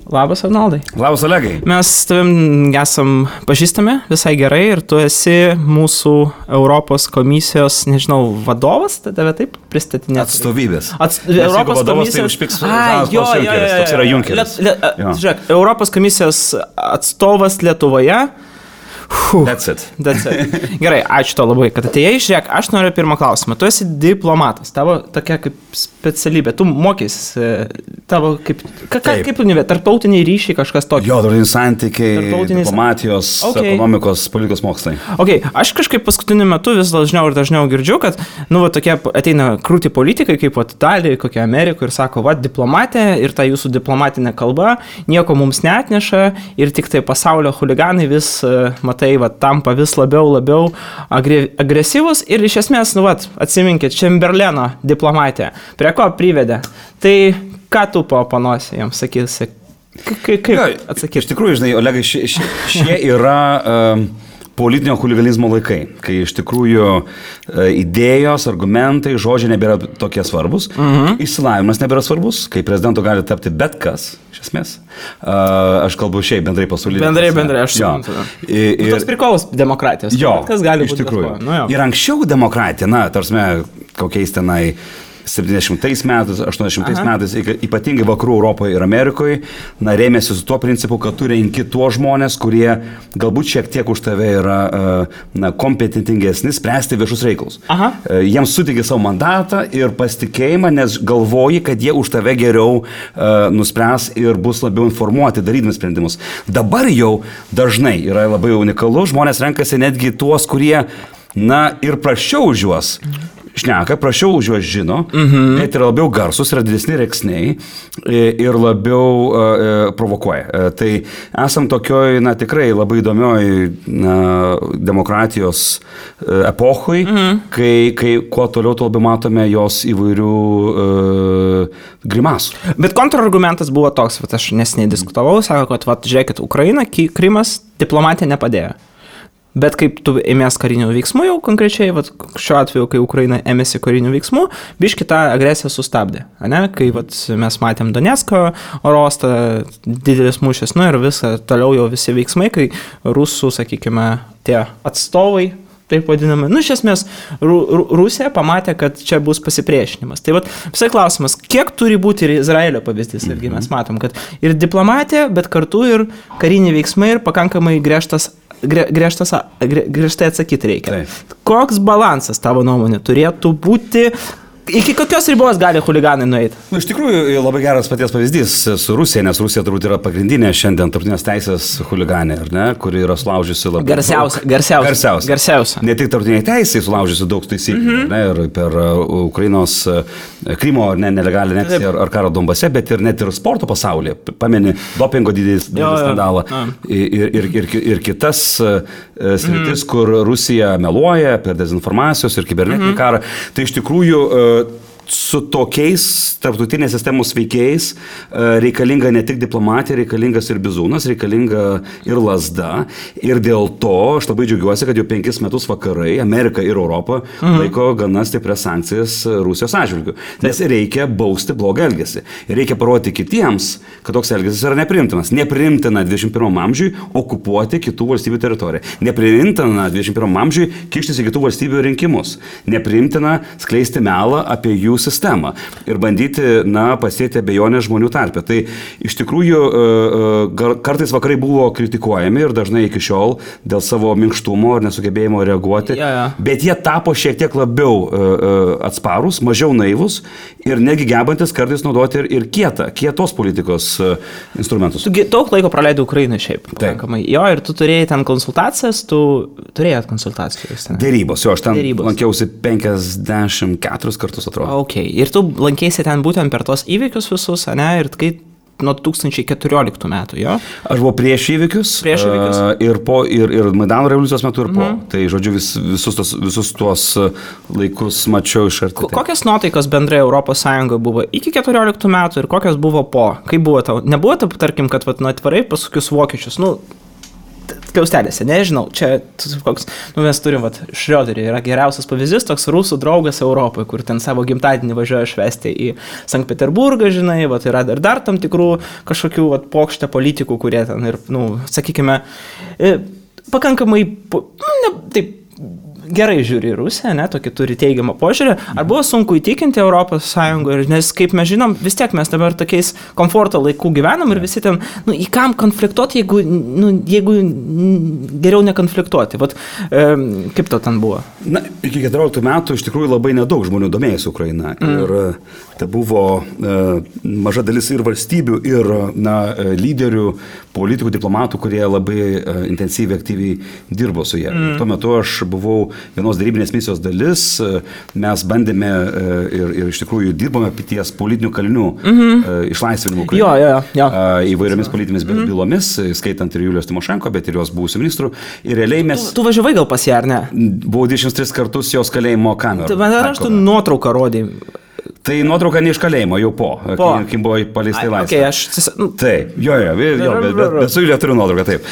Labas, Arnoldai. Labas, Olegai. Mes tavim esam pažįstami visai gerai ir tu esi mūsų Europos komisijos, nežinau, vadovas, tave taip pristatinėti. Atstovybės. Europos komisijos. Toks yra Junkeris. Žiūrėk, Europos komisijos atstovas Lietuvoje. That's it. Gerai, ačiū to labai, kad atėjai. Žiūrėk, aš noriu pirmą klausimą. Tu esi diplomatas, tavo tokia kaip specialybė. Tu mokys, tavo kaip tarptautiniai ryšiai kažkas tokio. Jo, tarptautiniai santykiai, diplomatijos, ekonomikos, politikos mokslai. Aš kažkaip paskutiniu metu vis dažniau ir dažniau girdžiu, kad, tokie ateina krūti politikai, kaip Italijoje, kokia Amerikoje ir sako, diplomatė ir ta jūsų diplomatinė kalba nieko mums neatneša ir tik tai pasaulio chuliganai vis, tampa vis labiau agresyvus ir iš esmės, atsiminkit, Čemberleno diplomatija, prie ko privedė. Tai ką tu paoponuosi jiems, sakysi? Kaip atsakyti? Iš tikrųjų, žinai, Olegai, šie yra politinio huliganizmo laikai, kai iš tikrųjų idėjos, argumentai, žodžiai nebėra tokie svarbus, išsilavinimas nebėra svarbus, kai prezidento gali tapti bet kas, iš esmės. Aš kalbu šiaip bendrai pasaulyje. Bendrai, aš suprantu. Toks prikolas demokratijos. Jo, kas gali iš tikrųjų. Ir anksčiau demokratija, tarsime, kokiais tenai 70 metais, 80 metais, ypatingai vakarų Europoje ir Amerikoje, rėmėsi su tuo principu, kad tu renki tuos žmonės, kurie galbūt šiek tiek už tave yra kompetentingesni spręsti viešus reikalus. Jiems suteikė savo mandatą ir pasitikėjimą, nes galvoji, kad jie už tave geriau nuspręs ir bus labiau informuoti, darydami sprendimus. Dabar jau dažnai yra labai unikalu, žmonės renkasi netgi tuos, kurie, ir praščiau už juos šneka, prašiau už juos žino, bet yra labiau garsus, yra didesni reksniai ir labiau provokuoja. Tai esam tokioj, tikrai labai įdomioj demokratijos epochoj, kai kuo toliau, tuo labiau matome jos įvairių grimasų. Bet kontrargumentas buvo toks, aš neseniai diskutavau, sako, kad žiūrėkit, Ukraina, Krymas diplomatija nepadėjo. Bet kaip tu ėmės karinių veiksmų jau konkrečiai, šiuo atveju, kai Ukraina ėmėsi karinių veiksmų, biškį tą agresiją sustabdė. Kai mes matėm Donecko orostą, didelis mūšis, ir visą toliau jau visi veiksmai, kai rusų, sakykime, tie atstovai, taip vadinami, iš esmės Rusija pamatė, kad čia bus pasipriešinimas. Tai visai klausimas, kiek turi būti ir Izraelio pavyzdys, irgi mes matom, kad ir diplomatija, bet kartu ir kariniai veiksmai ir pakankamai griežtai atsakyti reikia. Taip. Koks balansas tavo nuomonė turėtų būti? Iki kokios ribos gali chuliganai nueiti? Iš tikrųjų, labai geras paties pavyzdys su Rusija, nes Rusija turbūt yra pagrindinė šiandien tarptautinės teisės chuliganė, kuri yra sulaužiusi labai garsiausia. Ne tik tarptautiniai teisai sulaužiusi daug taisyklių, ir per Ukrainos Krymo nelegalią aneksiją ar karą Donbase, bet ir net ir sporto pasaulyje. Pameni dopingo didelis skandalą ir kitas sritis, kur Rusija meluoja per dezinformacijos ir kibernetinį karą. Tai iš tikrųjų su tokiais tarptautinės sistemos veikėjais reikalinga ne tik diplomatija, reikalingas ir bizūnas, reikalinga ir lazda. Ir dėl to aš labai džiaugiuosi, kad jau 5 metus vakarai, Amerika ir Europa laiko gana stiprias sankcijas Rusijos atžvilgiu. Nes reikia bausti blogą elgesį. Ir reikia parodyti kitiems, kad toks elgesys yra nepriimtinas. Nepriimtina 21 amžiui okupuoti kitų valstybių teritoriją. Nepriimtina 21 amžiui kištis į kitų valstybių rinkimus. Nepriimtina skleisti melą apie jų sistemą ir bandyti, pasėti abejonės žmonių tarpe. Tai iš tikrųjų kartais vakarai buvo kritikuojami ir dažnai iki šiol dėl savo minkštumo ir nesugebėjimo reaguoti, bet jie tapo šiek tiek labiau atsparus, mažiau naivus ir negi gebantis kartais naudoti ir kietos politikos instrumentus. Tu daug laiko praleidai Ukrainai šiaip. Pakankamai. Jo, ir tu turėjai ten konsultacijas, turėjai konsultacijas. Dėrybos, aš ten lankiausi 54 kartus, atrodo. Ir tu lankėsi ten būtent per tos įvykius visus, ir kai nuo 2014 metų, jo? Aš buvau prieš įvykius. Ir Maidano revoliucijos metu ir po. Tai, žodžiu, visus tuos laikus mačiau iš arti. Kokios nuotaikos bendrai Europos Sąjungoje buvo iki 14 metų ir kokios buvo po? Kaip buvo tau? Nebuvo, tarkim, kad atvarai pasakius vokiečius, skliaustelėse, nežinau, čia koks, mes turim, Šrioderį yra geriausias pavyzdys, toks rusų draugas Europoje, kur ten savo gimtadienį važiuoja švęsti į Sankt Peterburgą, žinai, yra dar tam tikrų kažkokių pokštę politikų, kurie ten ir, sakykime, pakankamai, taip, gerai žiūri į Rusiją, tokį turi teigiamą požiūrį. Ar buvo sunku įtikinti Europos Sąjungoje, nes kaip mes žinom, vis tiek mes dabar tokiais komforto laikų gyvenam ir visi ten, į kam konfliktuoti, jeigu geriau nekonfliktuoti. Kaip to ten buvo? Iki 14 metų iš tikrųjų labai nedaug žmonių domėjosi Ukraina. Ir tai buvo maža dalis ir valstybių, ir lyderių, politikų, diplomatų, kurie labai intensyviai, aktyviai dirbo su jie. Tuo metu aš buvau vienos darybinės misijos dalis, mes bandėme ir iš tikrųjų dirbome ties politinių kalinių išlaisvinimų įvairiomis politinėmis bylomis, skaitant ir Julijos Tymošenko, bet ir jos buvusių ministrų. Ir realiai mes... Tu važiavai gal pas ją, ar ne? Buvau 23 kartus jos kalėjimo kamerų. Aš tu nuotrauką rodai. Tai nuotrauka ne iš kalėjimo, jau kai buvo paleistai laisvė. Taip, bet su Julija turiu nuotrauką, taip.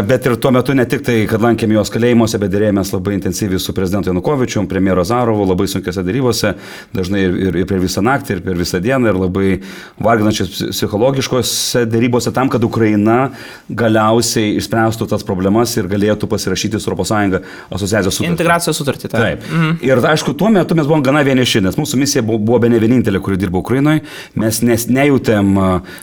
Bet ir tuo metu ne tik tai, kad lankėm jos kalėjimuose, bet dėrėjomės labai intensyviai su prezidentu Janukovičium, premjeru Azarovu, labai sunkiose darybose, dažnai ir per visą naktį, ir per visą dieną, ir labai varginančiose psichologiškose darybose tam, kad Ukraina galiausiai išspręstų tas problemas ir galėtų pasirašyti su ES asociacijos sutartį. Integracijos sutartį, taip. Ir aišku, tuo metu mes buvom gana vieniši, nes mūsų misija buvo ne vienintelė, kuri dirbo Ukrainoje, mes nejutėm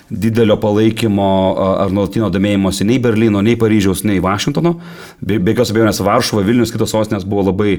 didelio palaikymo ar nuolatinio domėjimosi nei Berlyno, nei Paryžiaus, nei Vašingtono. Be jokios abejonės Varšuva, Vilnius, kitos sostinės buvo labai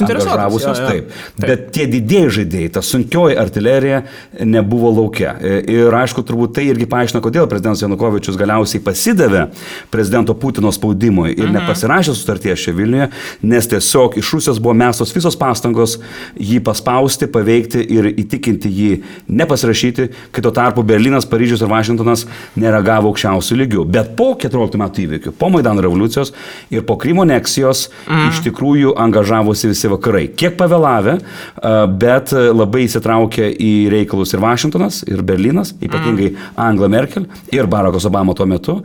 angažavusios. Taip. Bet tie didieji žaidėjai, ta sunkioji artilerija nebuvo laukia. Ir aišku, turbūt tai irgi paaiškina, kodėl prezidentas Janukovičius galiausiai pasidavė prezidento Putino spaudimui ir nepasirašė sutarties čia Vilniuje, nes tiesiog iš Rusijos buvo mestos visos pastangos jį paspausti, paveikti ir įtikinti jį nepasirašyti, kai tuo tarpu Berlynas, Paryžius ir Vašingtonas nereagavo aukščiausių lygių. Bet po 14 metų įvykių, po Maidano revoliucijos ir po Krymo aneksijos iš tikrųjų angažavosi visi vakarai. Kiek pavėlavę, bet labai įsitraukė į reikalus ir Vašingtonas, ir Berlynas, ypatingai Angela Merkel ir Barackas Obama tuo metu.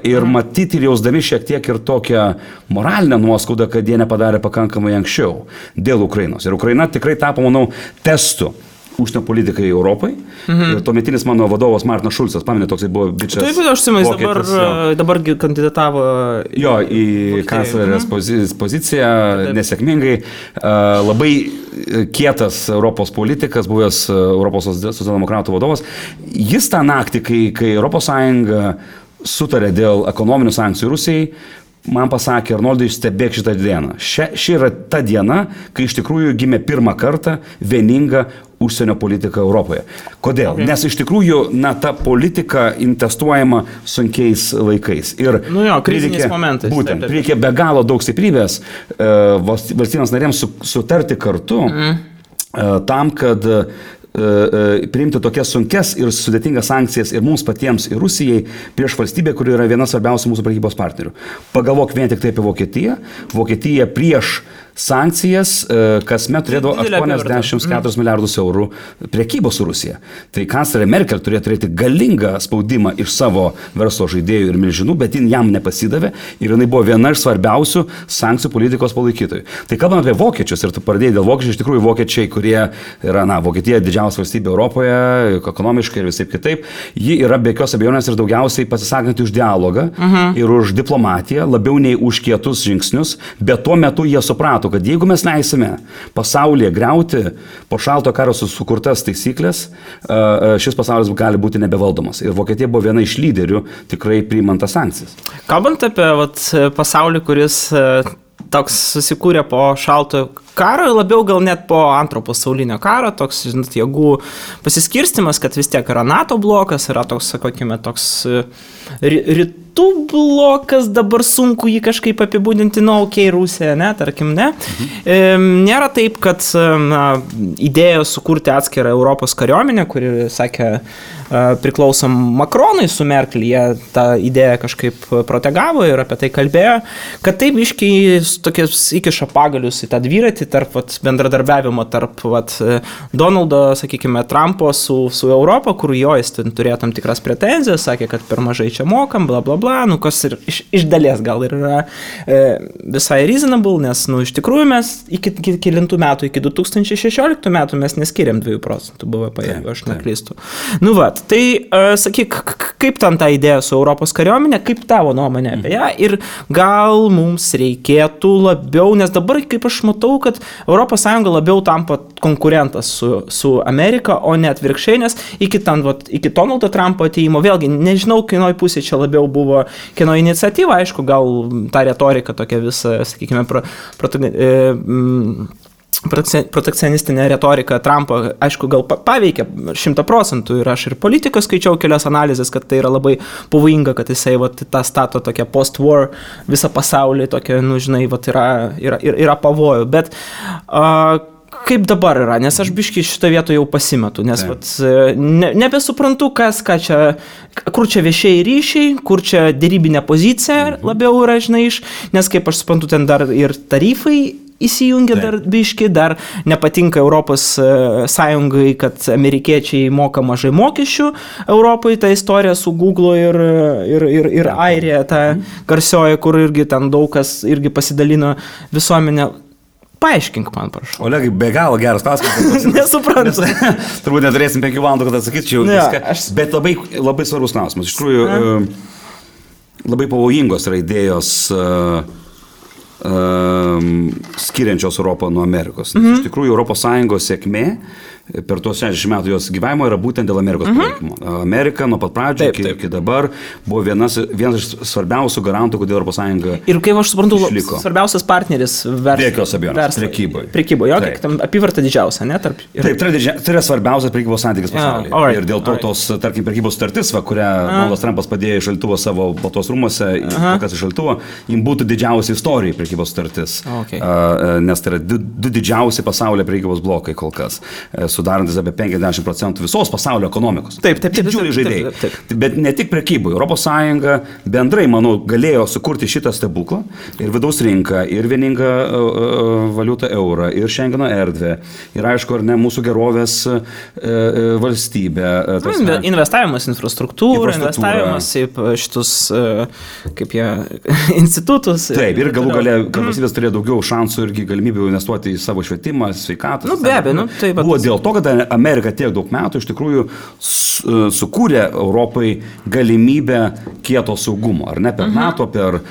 Ir matyti ir jausdami šiek tiek ir tokią moralinę nuoskaudą, kad jie nepadarė pakankamai anksčiau dėl Ukrainos. Ir Ukraina tikrai tapo, manau, testu užsienio politikai Europai. Ir tuometinis mano vadovas Martinas Šulcas, pamenė, toksai buvo bičias. Taip, aš atsimenu, dabar kandidatavo į kanclerės poziciją, nesėkmingai. Labai kietas Europos politikas, buvęs Europos socialdemokratų vadovas. Jis tą naktį, kai ES sutarė dėl ekonominių sankcijų Rusijai, man pasakė: Arnoldai, stebėk šitą dieną. Ši yra ta diena, kai iš tikrųjų gimė pirmą kartą vieninga užsienio politika Europoje. Kodėl? Nes iš tikrųjų, ta politika investuojama sunkiais laikais. Ir kriziniais momentais. Būtent, reikia be galo daug stiprybės valstybėms narėms sutarti kartu tam, kad priimti tokias sunkes ir sudėtingas sankcijas ir mums patiems, ir Rusijai, prieš valstybę, kuri yra viena svarbiausių mūsų prekybos partnerių. Pagalvok vien tik tai apie Vokietiją. Vokietija prieš sankcijas kasmet turėdavo 84 milijardus eurų prekybos su Rusija. Tai kanclerė Merkel turėjo turėti galingą spaudimą iš savo verslo žaidėjų ir milžinų, bet jin jam nepasidavė ir jinai buvo viena iš svarbiausių sankcijų politikos palaikytojų. Tai kalbant apie vokiečius, ir tu pradėjai dėl vokiečių, iš tikrųjų vokiečiai, kurie yra, Vokietija didžiausia valstybė Europoje, ekonomiškai ir visaip kitaip, ji yra be jokios abejonės ir daugiausiai pasisakanti už dialogą ir už diplomatiją, labiau nei už kietus žingsnius, bet tuo metu jie suprato, kad jeigu mes leisime pasaulyje griauti po šalto karo sukurtas taisyklės, šis pasaulis gali būti nebevaldomas. Ir Vokietija buvo viena iš lyderių tikrai priimant tas sankcijas. Kalbant apie pasaulį, kuris toks susikūrė po šaltojo karo, labiau gal net po antro pasaulinio karo, toks, jėgų pasiskirstimas, kad vis tiek yra NATO blokas, yra toks, sakykime, toks rytų blokas, dabar sunku jį kažkaip apibūdinti, Rusija, tarkim, ne. Nėra taip, kad idėja sukurti atskirą Europos kariuomenę, kuri, sakė, priklausom Makronui su Merkel, jie tą idėją kažkaip protegavo ir apie tai kalbėjo, kad taip iškiai tokias įkiša pagalius į tą dviratį tarp bendradarbiavimo tarp Donaldo, sakykime, Trumpo su Europa, kur jo jis turėjo tam tikras pretenzijas, sakė, kad per mažai čia mokam, bla bla bla. bla, nu, kas ir iš dalies gal ir yra visai reasonable, nes, nu, iš tikrųjų mes iki kilintų metų, iki 2016 metų mes neskiriam 2% BVP, jeigu aš neklystu. Nu, va, tai sakyk, kaip ten ta idėja su Europos kariuomenė, kaip tavo nuomonė apie ją ir gal mums reikėtų labiau, nes dabar, kaip aš matau, kad ES labiau tampa konkurentas su Amerika, o ne atvirkščiai, nes iki Donaldo Trumpo atėjimo, vėlgi, nežinau, kieno pusė čia labiau buvo, kieno iniciatyva, aišku, gal ta retorika tokia visa, sakykime, protekcionistinė retorika Trumpo, aišku, gal paveikia 100% ir aš ir politiką skaičiau kelias analizės, kad tai yra labai pavojinga, kad jisai tą stato tokią post-war visą pasaulį, tokia, nu, žinai, yra pavojų, bet kaip dabar yra, nes aš biškai šitą vietą jau pasimetu, nes nebesuprantu, kur čia viešieji ryšiai, kur čia dėrybinė pozicija labiau yra, žinai, nes kaip aš suprantu, ten dar ir tarifai įsijungia dar biškai, dar nepatinka Europos Sąjungai, kad amerikiečiai moka mažai mokesčių Europai, ta istorija su Google ir Airija, ta garsioji, kur irgi ten daug kas irgi pasidalino visuomenę. Paaiškink man, prašau. Olegai, be galo geras klausimas. Nesuprantu. Turbūt neturėsim 5 valandų, kad atsakyčiau viską. Bet labai svarbus klausimas. Iš tikrųjų, labai pavojingos yra idėjos skiriančios Europą nuo Amerikos. Iš tikrųjų, ES sėkmė per tuos 60 metų jos gyvavimo yra būtent dėl Amerikos palaikymo. Amerika nuo pat pradžio iki dabar buvo vienas iš svarbiausių garantų, kodėl ES išliko. Ir kaip aš suprantu, svarbiausias partneris prekyboje. Jo, kiek tam apyvarta didžiausia, ne? Taip, tai yra svarbiausias prekybos santykis pasaulyje. Ir dėl to tos, tarkim, prekybos sutartis, kurią Donaldas Trumpas padėjo iš šaldytuvo savo Baltuos rūmuose, kas iš šaldytuvo, jim būtų didžiausia istorija prekybos sutartis. Nes tai yra du didžiausi pasaulyje prekybos blokai kol kas, sudarantis apie 50% visos pasaulio ekonomikos. Taip. Didžiuliai žaidėjai. Bet ne tik prekybai. ES bendrai, manau, galėjo sukurti šitą stebuklą ir vidaus rinką, ir vieningą valiutą eurą, ir Schengeno erdvę, ir aišku, ar ne, mūsų gerovės valstybė. Investavimas infrastruktūrą, investavimas į šitus, kaip jie, institutus. Taip, ir galų gale, kad valstybės turėjo daugiau šansų irgi galimybių investuoti į savo švietimą, sveikatą. Nu, be abejo, buvo dėl to, kad Amerika tiek daug metų iš tikrųjų sukūrė Europai galimybę kieto saugumo, ar ne, per NATO, per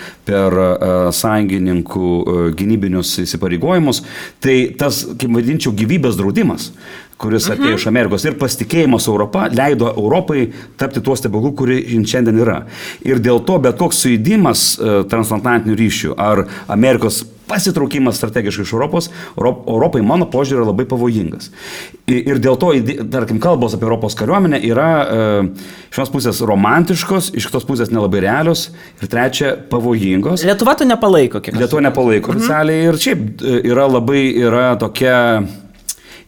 sąjungininkų gynybinius įsipareigojimus. Tai tas, kaip vadinčiau, gyvybės draudimas, kuris atėjo iš Amerikos ir pasitikėjimas Europą leido Europai tapti tuo stebuklu, kuri šiandien yra. Ir dėl to bet koks sujudimas transatlantinių ryšių ar Amerikos pasitraukimas strategiškai iš Europai, mano požiūrį, yra labai pavojingas. Ir dėl to, tarkim, kalbos apie Europos kariuomenę yra iš vienos pusės romantiškos, iš kitos pusės nelabai realios ir trečia pavojingos. Lietuva to nepalaiko, kiek? Lietuva nepalaiko oficialiai ir šiaip yra tokia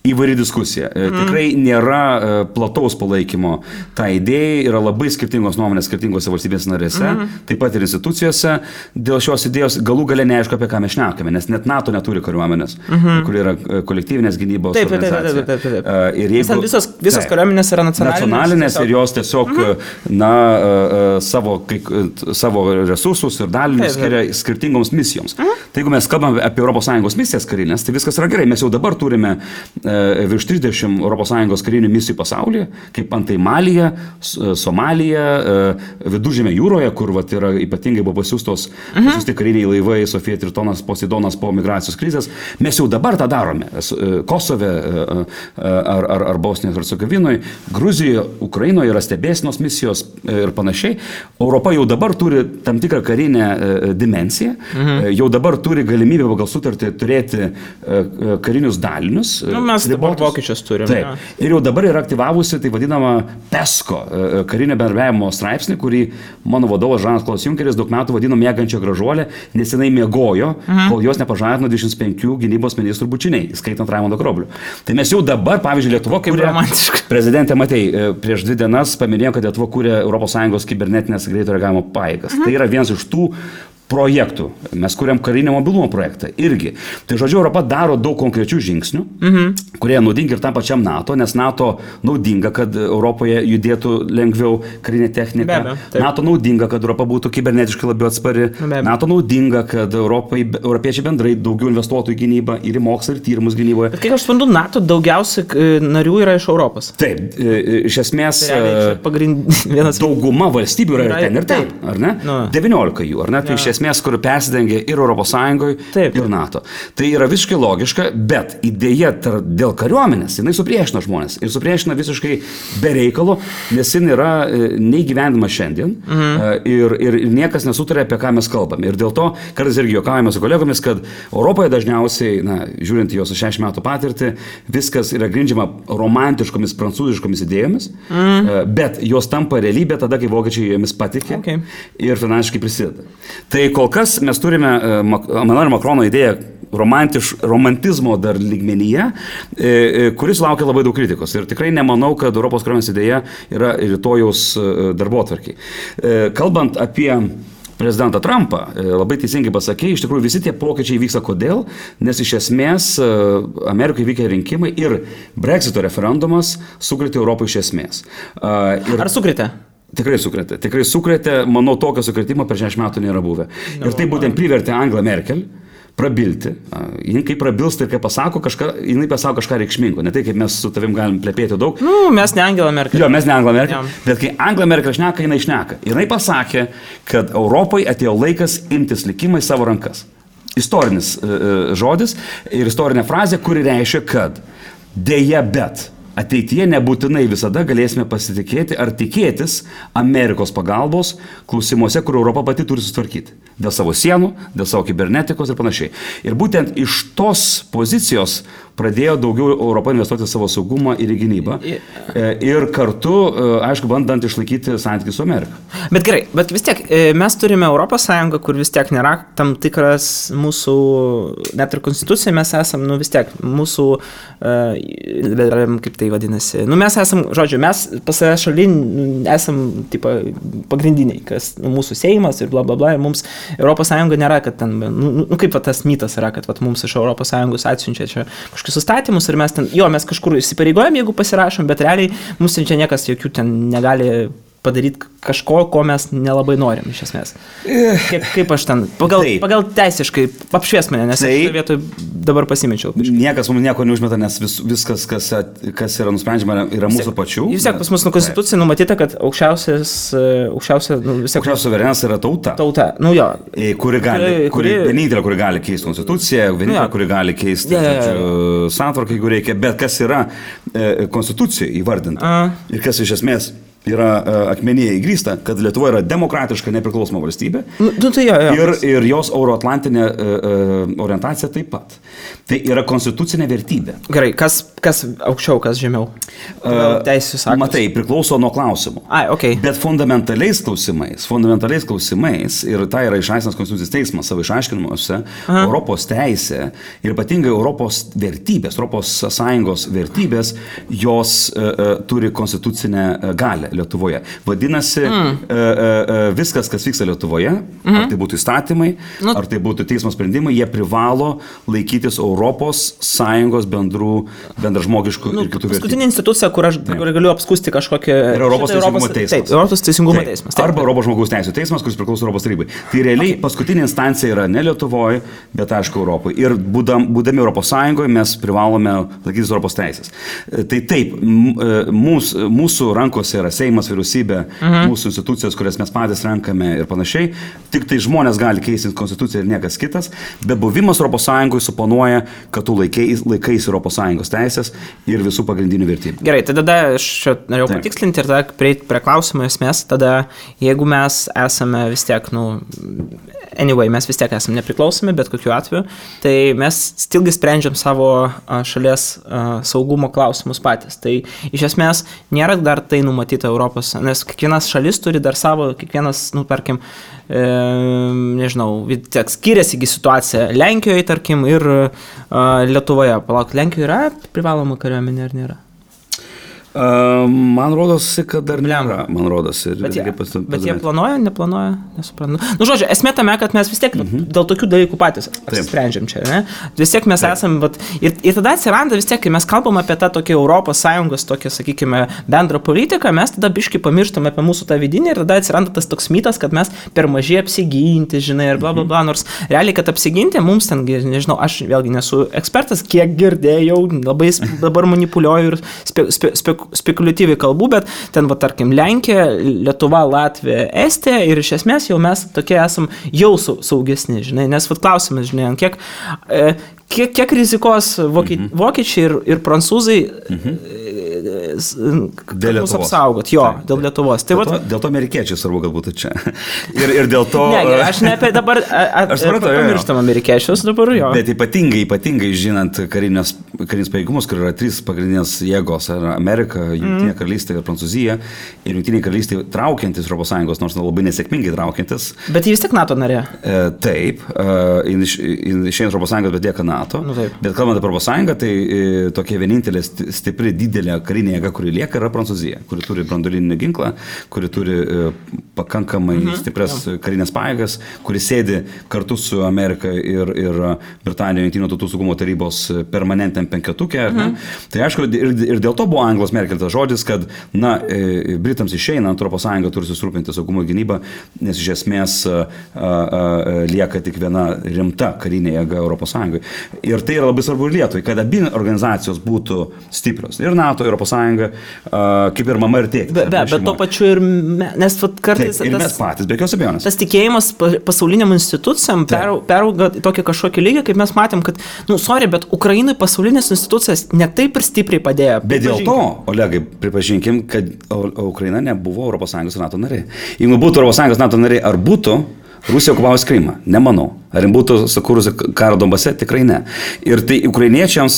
įvairi diskusija. Tikrai nėra plataus palaikymo. Ta idėja yra labai skirtingos nuomonės skirtingose valstybės narėse, taip pat ir institucijose. Dėl šios idėjos galų gale neaišku, apie ką mes šnekame, nes net NATO neturi kariuomenės, kur yra kolektyvinės gynybos organizacija. Ir jeigu visos kariuomenės yra nacionalinės ir jos tiesiog savo resursus ir dalinius skiria skirtingoms misijoms. Tai jeigu mes kalbame apie ES misijas karinės, tai viskas yra gerai. Mes jau dabar turime virš 30 ES karinių misijų pasaulyje, kaip antai Malija, Somalija, Viduržemio jūroje, kur yra ypatingai buvo pasiųsti kariniai laivai, Sofija Tritonas, Poseidonas po migracijos krizės. Mes jau dabar tą darome. Kosove ar Bosnijoje ir Hercegovinoje, Gruzijoje, Ukrainoje yra stebėsenos misijos ir panašiai. Europa jau dabar turi tam tikrą karinę dimensiją, jau dabar turi galimybę pagal sutartį turėti karinius dalinius. Mes dabar vokiečius turime. Taip. Ir jau dabar yra aktyvavusi tai vadinama PESCO karinio bendradarbiavimo straipsnį, kurį mano vadovas Žanas Klodas Junkeris daug metų vadino miegančia gražuolė, nes jinai miegojo, kol jos nepažadino 25 gynybos ministrų bučiniai, skaitant Raimundo Karoblį. Tai mes jau dabar, pavyzdžiui, Lietuva, kaip prezidentė Matei, prieš 2 dienas paminėjo, kad Lietuva kūrė ES kibernetinės greito reagavimo pajėgas. Tai yra vienas iš tų projektų. Mes kuriam karinio mobilumo projektą irgi. Tai žodžiu, Europa daro daug konkrečių žingsnių, kurie naudingi ir tam pačiam NATO, nes NATO naudinga, kad Europoje judėtų lengviau karinė technika. NATO naudinga, kad Europa būtų kibernetiškai labiau atspari. NATO naudinga, kad europiečiai bendrai daugiau investuotų į gynybą ir į mokslą ir tyrimus gynyboje. Bet kiek aš suprantu, NATO daugiausiai narių yra iš Europos. Taip, iš esmės dauguma valstybių yra ir ten, ar ne? 19 jų, ar ne? Tai iš esmės, kur persidengia ir Europos Sąjungoje, ir NATO. Tai yra visiškai logiška, bet idėja dėl kariuomenės, jinai supriešina žmonės ir supriešina visiškai be reikalo, nes jin yra neįgyvendama šiandien ir niekas nesutarė, apie ką mes kalbame. Ir dėl to, kartais irgi juokaujame su kolegomis, kad Europoje dažniausiai, žiūrint į jos 60 metų patirtį, viskas yra grindžiama romantiškomis, prancūziškomis idėjomis, bet jos tampa realybė tada, kai vokiečiai jomis patikė ir finansiškai prisideda. Tai kol kas mes turime Emmanuelio Macrono idėją romantizmo dar lygmenyje, kuris laukia labai daug kritikos. Ir tikrai nemanau, kad Europos kariuomenės idėja yra rytojaus darbotvarkiai. Kalbant apie prezidentą Trumpą, labai teisingai pasakė, iš tikrųjų visi tie pokyčiai vyksta kodėl, nes iš esmės Amerikoje vykę rinkimai ir Brexito referendumas sukrėtė Europą iš esmės. Ar sukrėtė? Tikrai sukrėtė, manau, tokio sukrėtimo per 60 metų nėra buvę. Ir tai būtent privertė Angelą Merkel prabilti. Jis kai prabilsta ir kai pasako kažką, jinai pasako kažką reikšmingo. Ne tai, kaip mes su tavim galim plepėti daug. Mes ne Angela Merkel. Jo, mes ne Angela Merkel. Bet kai Angela Merkel šneka, jinai šneka. Jinai pasakė, kad Europai atėjo laikas imtis likimą į savo rankas. Istorinis žodis ir istorinė frazė, kuri reiškia, kad dėja bet ateityje nebūtinai visada galėsime pasitikėti ar tikėtis Amerikos pagalbos klausimuose, kur Europa pati turi susitvarkyti. Dėl savo sienų, dėl savo kibernetikos ir panašiai. Ir būtent iš tos pozicijos pradėjo daugiau Europą investuoti savo saugumą ir į gynybą. Ir kartu, aišku, bandant išlaikyti santykį su Amerika. Bet gerai, bet vis tiek mes turime Europos Sąjungą, kur vis tiek nėra tam tikras mūsų, net ir konstitucija, mes esam, vis tiek, mūsų, kaip tai vadinasi, mes esam, žodžiu, mes pas save šalin esam, tipo, pagrindiniai, kas mūsų Seimas ir bla bla bla, ir mums Europos Sąjunga nėra, kad ten, kaip tas mitas yra, kad mums iš Europos Sąjungos atsiunčia čia kažkokius įstatymus ir mes ten, mes kažkur įsipareigojam, jeigu pasirašom, bet realiai mums čia niekas jokių ten negali padaryti kažko, ko mes nelabai norim iš esmės. Kaip aš ten, pagal teisiškai apšvies mane, nes aš vietoj dabar pasimečiau. Niekas mums nieko neužmeta, nes viskas, kas yra nusprendžiama, yra mūsų pačių. Vis tiek pas mus konstitucija numatyta, kad aukščiausia suverenas yra tauta. Tauta, kuri vienintelė, kuri gali keisti konstituciją, vienintelė, kuri gali keisti santvarką, jeigu reikia, bet kas yra konstitucija įvardinta ir kas iš esmės yra akmenyje įgrįsta, kad Lietuva yra demokratiška, nepriklausoma valstybė ir jos euroatlantinė orientacija taip pat. Tai yra konstitucinė vertybė. Gerai, kas aukščiau, kas žemiau? Teisės aktus. Matai, priklauso nuo klausimų. Bet fundamentaliais klausimais, ir tai yra išaiškinas Konstitucijos teismas savo išaiškinimuose, Europos teisė ir ypatingai Europos vertybės, Europos Sąjungos vertybės, jos turi konstitucinę galią Lietuvoje. Vadinasi, viskas, kas vyksta Lietuvoje, ar tai būtų įstatymai, ar tai būtų teismo sprendimai, jie privalo laikytis Europos Sąjungos bendražmogiškų ir kitų vertybių. Paskutinė institucija, kur aš galiu apskūsti kažkokią... Europos teisingumo teismas. Taip, Europos teisingumo teismas. Arba Europos žmogaus teisų teismas, kuris priklauso Europos tarybai. Tai realiai paskutinė instancija yra ne Lietuvoje, bet aišku Europoje. Ir būdami Europos Sąjungoje mes privalome laikytis Europos teisės. Tai taip, mūsų rankose yra Seimas, vyriausybė, mūsų institucijos, kurias mes patys renkame ir panašiai. Tik tai žmonės gali keisti konstituciją ir niekas kitas, bet buvimas Europos Sąjungoje suponuoja, kad tu laikais Europos Sąjungos teisės ir visų pagrindinių vertybių. Gerai, tai tada aš norėjau patikslinti ir tada prieiti prie klausimo esmės, tada jeigu mes esame vis tiek, mes vis tiek esame nepriklausomi, bet kokiu atveju, tai mes stilgi sprendžiam savo šalies saugumo klausimus patys. Tai iš esmės nėra dar tai numatyta Europos, nes kiekvienas šalis turi dar savo, kiekvienas, tarkim, skiriasi situacija Lenkijoje, tarkim, ir Lietuvoje. Palauk, Lenkijoje yra privaloma kariuomenė ar nėra? Man rodosi, kad dar nėra, man rodosi. Bet jie planuoja, neplanuoja, nesuprantu. Nu, žodžiu, esmė tame, kad mes vis tiek dėl tokių dalykų patys apsisprendžiam čia, ne? Vis tiek mes esam, ir tada atsiranda vis tiek, kai mes kalbam apie tą tokį Europos Sąjungos, tokią, sakykime, bendrą politiką, mes tada biškai pamirštam apie mūsų tą vidinį ir tada atsiranda tas toks mitas, kad mes per mažai apsiginti, žinai, ir bla bla bla, nors realiai, kad apsiginti, mums ten, nežinau, aš vėlgi nesu ekspertas, kiek girdėjau, labai dabar manipuliuoju ir spekuliatyviai kalbų, bet ten, tarkim, Lenkija, Lietuva, Latvija, Estija ir iš esmės jau mes tokie esam jau saugesni, žinai, nes klausimas, žinai, kiek rizikos vokiečiai ir prancūzai dėl Lietuvos apsaugot, dėl Lietuvos. Dėl to amerikiečiai svarbu, kad būtų čia. Ir dėl to... Ne, aš ne apie dabar pamirštam amerikiečius dabar, jo. Bet ypatingai žinant karinius pajėgumus, kur yra 3 pagrindinės jėgos, Amerika, Jungtinė karalystė ir Prancūzija, ir Jungtinė karalystė traukiantis Europos Sąjungos, nors labai nesėkmingai traukiantis. Bet jis tik NATO narė. Taip, išėjant Europos Sąjungos, bet lieka NATO. Bet kalbant apie Europos Sąjungą, tai tokia vienintelė stipri didelė karinė jėga, kuri lieka, yra Prancūzija, kuri turi branduolinį ginklą, kuri turi pakankamai stiprias karinės pajėgas, kuri sėdi kartu su Amerika ir Britanija Jungtinių tautų saugumo tarybos permanentiniam penketuke. Tai aišku, ir dėl to buvo Anglos Merkel tas žodis, kad Britams išeinant Europos Sąjunga turi susirūpinti saugumo gynybą, nes iš esmės lieka tik viena rimta karinė jėga Europos Sąjungai. Ir tai yra labai svarbu ir Lietuvai, kad abi organizacijos būtų stiprios. Ir NATO, Europos Sąjunga, kaip ir mama ir tėtis. Bet to pačiu ir nes kartais... Taip, ir mes patys, be jokios abejonės. Tas tikėjimas pasauliniam institucijam perauga tokį kažkokį lygį, kaip mes matėm, kad, bet Ukrainai pasaulinės institucijas ne taip ir stipriai padėjo. Bet dėl to, Olegai, pripažinkim, kad Ukraina nebuvo Europos Sąjungos ir NATO narė. Jeigu būtų Europos Sąjungos NATO narė, ar būtų Rusija okupavus Krymą? Nemanau. Ar jis būtų sukūrusi karą Donbase? Tikrai ne. Ir tai ukrainiečiams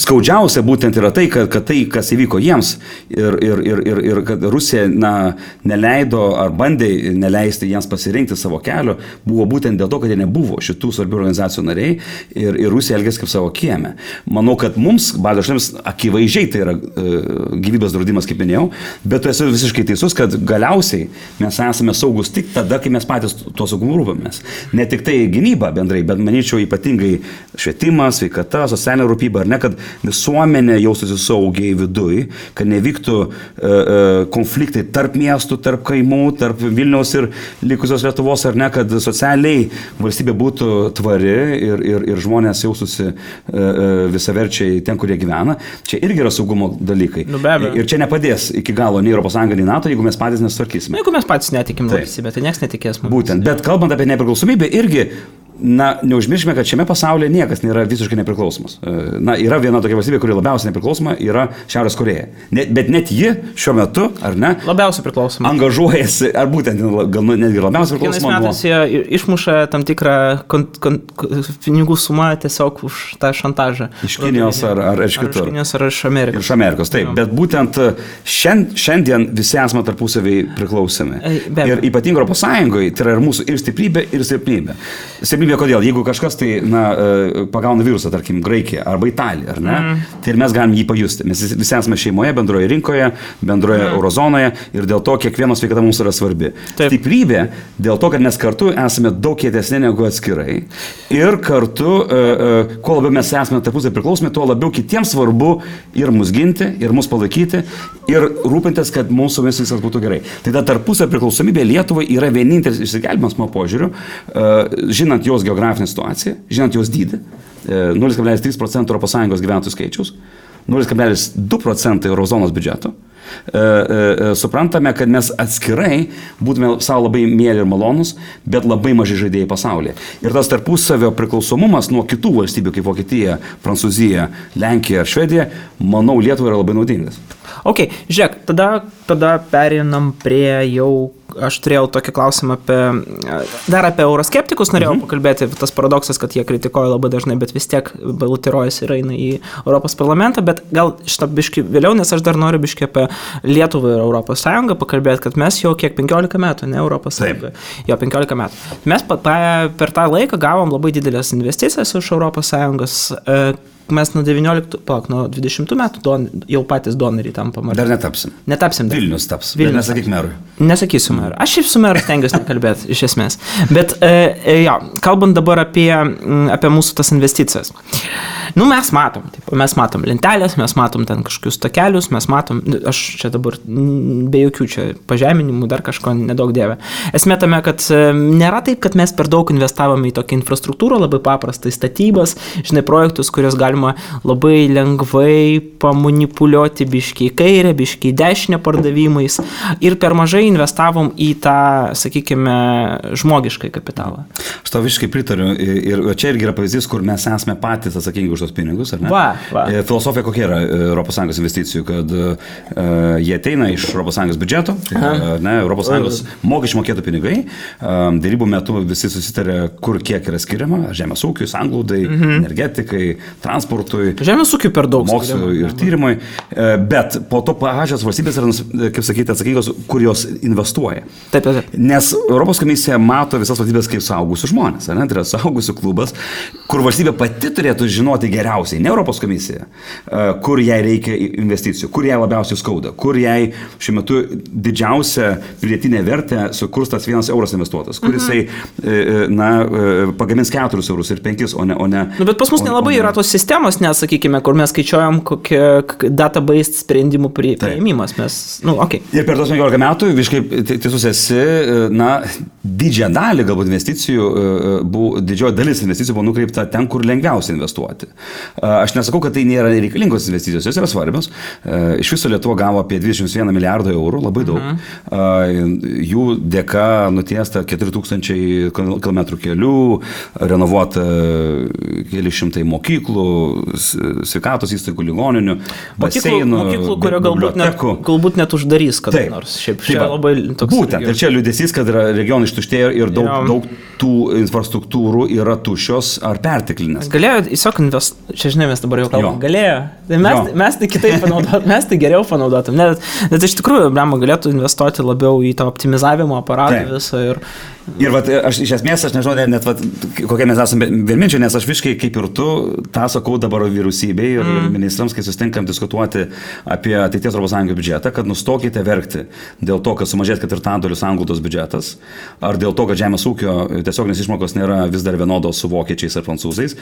skaudžiausia būtent yra tai, kad tai, kas įvyko jiems ir kad Rusija neleido ar bandė neleisti jiems pasirinkti savo kelio, buvo būtent dėl to, kad jie nebuvo šitų svarbių organizacijų nariai ir Rusija elgėsi kaip savo kieme. Manau, kad mums, Baltijos šalims, akivaizdžiai tai yra gyvybės draudimas, kaip minėjau, bet tu esi visiškai teisus, kad galiausiai mes esame saugus tik tada, kai mes patys tuo saugumu rūpamės. Ne tik tai gynyba bendrai, bet manyčiau ypatingai švietimas, sveikata, socialinė rūpyba, ar ne, kad visuomenė jaustųsi saugiai viduj, kad nevyktų konfliktai tarp miestų, tarp kaimų, tarp Vilniaus ir likusios Lietuvos, ar ne, kad socialiai valstybė būtų tvari ir žmonės jaustųsi visaverčiai ten, kur jie gyvena. Čia irgi yra saugumo dalykai. Ir čia nepadės iki galo nei Europos Sąjunga, nei NATO, jeigu mes patys nesutvarkysime. Jeigu mes patys netikim valstybę, tai niekas netikės mums. Būtent, bet kalbant apie nepriklausomybę, irgi, neužmirškime, kad šiame pasaulyje niekas nėra visiškai nepriklausomas. Yra viena tokia valstybė, kuri labiausiai nepriklausoma, yra Šiaurės Korėja. Bet net ji šiuo metu, ar ne? Labiausiai priklausoma. Angažuojasi, ar būtent gal netgi labiausiai priklausoma. Kiekvienais metais jie išmuša tam tikrą pinigų sumą tiesiog už tą šantažą. Iš Kinijos ar iš kitur. Iš Kinijos ar iš Amerikos. Iš Amerikos, taip. Bet būtent šiandien visi esame tarpusaviai priklausomi. Ir ypatingai Europos Sąjungoje tai yra ir mūsų ir stiprybė, ir silpnybė. Kodėl? Jeigu kažkas tai pagauna virusą, tarkim, Graikija arba Italija, ar ne, tai ir mes galim jį pajusti. Mes visi esame šeimoje, bendroje rinkoje, bendroje eurozonoje ir dėl to kiekvieno sveikata mums yra svarbi. Taip. Stiprybė dėl to, kad mes kartu esame daug kietesni negu atskirai ir kartu, kuo labiau mes esame tarpusai priklausomi, tuo labiau kitiems svarbu ir mus ginti, ir mus palaikyti ir rūpintis, kad mūsų viskas būtų gerai. Tai ta tarpusai priklausomybė Lietuvai yra vienintelis išsigelbėjimas mano požiūriu, žinant jos geografinę situaciją, žinant jos dydį, 0,3% ES gyventojų skaičiaus, 0,2% eurozonos biudžeto. Suprantame, kad mes atskirai būtume savo labai mėly ir malonus, bet labai maži žaidėjai pasaulyje. Ir tas tarpusavio priklausomumas nuo kitų valstybių, kaip Vokietija, Prancūzija, Lenkija ar Švedija, manau, Lietuvai yra labai naudingas. Ok, žiūrėk, tada perinam prie jau, aš turėjau tokį klausimą dar apie euroskeptikus norėjau pakalbėti, tas paradoksas, kad jie kritikuoja labai dažnai, bet vis tiek balutiruojasi ir eina į Europos parlamentą, bet gal šitą biškį vėliau, nes aš dar noriu biškį apie Lietuvą ir Europos Sąjungą pakalbėti, kad mes jau kiek 15 metų, ne Europos Sąjunga, jau 15 metų. Mes per tą laiką gavom labai didelės investicijas iš Europos Sąjungos. mes nuo 20 metų jau patys donoriai tampam. Dar netapsim. Netapsim. Vilnius taps. Vilnius. Nesakyk merui. Nesakysiu merui. Aš šiaip su meru stengiuosi nekalbėti, iš esmės. Bet, kalbant dabar apie mūsų tas investicijas. Mes matom lentelės, mes matom ten kažkokius takelius, mes matom, aš čia dabar be jokių čia pažeminimų, dar kažko nedaug dievė. Esmė tame, kad nėra taip, kad mes per daug investavome į tokią infrastruktūrą, labai paprastai statybas, projektus, kurios galima labai lengvai pamanipuliuoti biškiai kairę, biškiai dešinę pardavimais ir per mažai investavom į tą, sakykime, žmogiškai kapitalą. Aš tau visiškai pritariu ir čia irgi yra pavyzdys, kur mes esame patys atsakingi už tos pinigus, ar ne? Va. Filosofija kokia yra ES investicijų, kad jie ateina iš ES biudžeto, ES mokesčių mokėtų pinigai, dėrybų metu visi susitarė, kur kiek yra skiriama, žemės ūkiui, sanglūdai, energetikai, transportui, žemės ūkiui per daug mokslui ir tyrimui, bet po to pačios valstybės yra, kaip sakyti, atsakingos, kur jos investuoja. Taip. Nes Europos komisija mato visas valstybės kaip suaugusių žmonės, tai yra suaugusių klubas, kur valstybė pati turėtų žinoti geriausiai, ne Europos komisija, kur jai reikia investicijų, kur jai labiausiai skauda, kur jai šiuo metu didžiausia pridėtinė vertė sukurs tas 1 euras investuotas, kur jisai pagamins 4 eurus ir 5, o ne. Bet pas mus nelabai yra tos sistemos, nes, sakykime, kur mes skaičiuojam kokie database sprendimų priėmimas. Ir per tos 15 metų, visiškai teisus esi, didžiąją dalį galbūt investicijų, didžioji dalis investicijų buvo nukreipta ten, kur lengviausia investuoti. Aš nesakau, kad tai nėra reikalingos investicijos, jos yra svarbios. Iš viso Lietuva gavo apie 21 milijardą eurų, labai daug. Jų dėka nutiesta 4000 km kelių, renovuota keli šimtai mokyklų, sveikatos įstaigų, ligoninių, baseinų, mokyklų, galbūt net uždarys kada nors. Šiaip labai toks. Būtent, ir čia liūdesys, kad regionai ištuštėjo ir daug tų infrastruktūrų yra tuščios ar perteklinės. Galėjo tiesiog investuoti, čia žinai, mes dabar jau kalbam, galėjo. Mes tai kitaip panaudotum, mes tai geriau panaudotum. Net iš tikrųjų, galėtų investuoti labiau į tą optimizavimo aparatą visą ir aš iš esmės, aš nežinau, net kokie mes esame vienminčiai, nes aš visiškai kaip ir tu, tą sakau dabar vyriausybei ir ministrams, kai susitinkam diskutuoti apie ateities ES biudžetą, kad nustokite verkti dėl to, kad sumažės 4/4 sanglaudos biudžetas, ar dėl to, kad žemės ūkio tiesioginės išmokos nėra vis dar vienodos su vokiečiais ar prancūzais.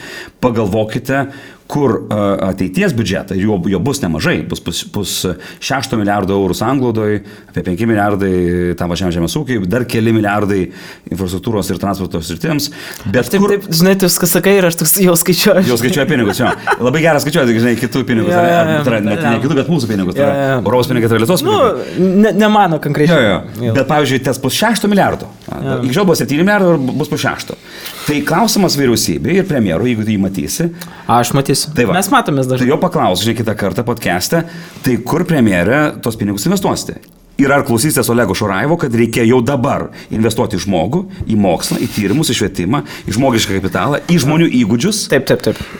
Pagalvokite, kur ateities biudžetą, jo bus nemažai, bus 6 milijardų eurų sanglaudoje, apie 5 milijardai tam pačiam žemės ūkiui, dar keli milijardai infrastruktūros ir transporto sritims. Bet taip, žinai, tu viską sakai ir aš jau skaičiuoju. Jau skaičiuoju pinigus, jo. Labai geras skaičiuoti, žinai, kitų pinigus. Ne kitų, bet mūsų pinigus. Europos pinigai yra Lietuvos pinigai. Ne mano konkrečiai. Bet pavyzdžiui, tas bus 6 milijardų. Iki šiol buvo 7 milijardų, bus po 6. Tai klausimas vyriausybei ir premjerui, jeigu tu jį matysi. Aš matysiu. Mes matomės dažnai. Tai jau paklaus, žinai, kitą kartą podcast'e, tai kur premjerė tos pinigus investuosite? Ir ar klausysitės Olego Šuraivo, kad reikia jau dabar investuoti į žmogų, į mokslą, į tyrimus, į švietimą, į žmogišką kapitalą, į žmonių įgūdžius, taip.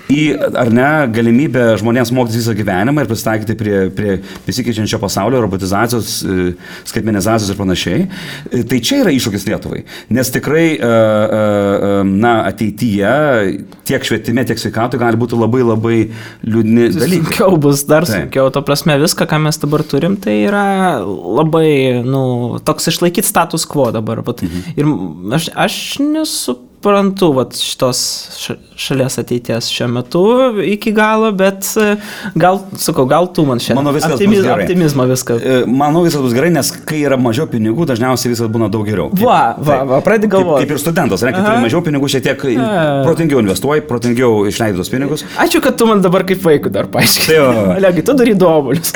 Į, ar ne, galimybę žmonėms mokytis visą gyvenimą ir prisitaikyti prie besikeičiančio pasaulio, robotizacijos, skaitmenizacijos ir panašiai. Tai čia yra iššūkis Lietuvai. Nes tikrai, ateityje tiek švietime, tiek sveikatoje gali būti labai, labai liūdni dalykai. Sunkiau bus, dar sunkiau. To prasme, viską, ką mes dabar turim, tai yra labai, toks išlaikyti status quo dabar. Ir aš nesuprantu šitos šalies ateities šiuo metu iki galo, bet gal tu man šiandien optimizmo viską. Manau, viskas bus gerai, nes kai yra mažiau pinigų, dažniausiai viskas būna daug geriau. Pradedi galvoti. Kaip ir studentas, kai turi mažiau pinigų, šiek tiek protingiau investuoji, protingiau išleidi tos pinigus. Ačiū, kad tu man dabar kaip vaikui dar paaiškinai. Olegai, tu darai duobulius.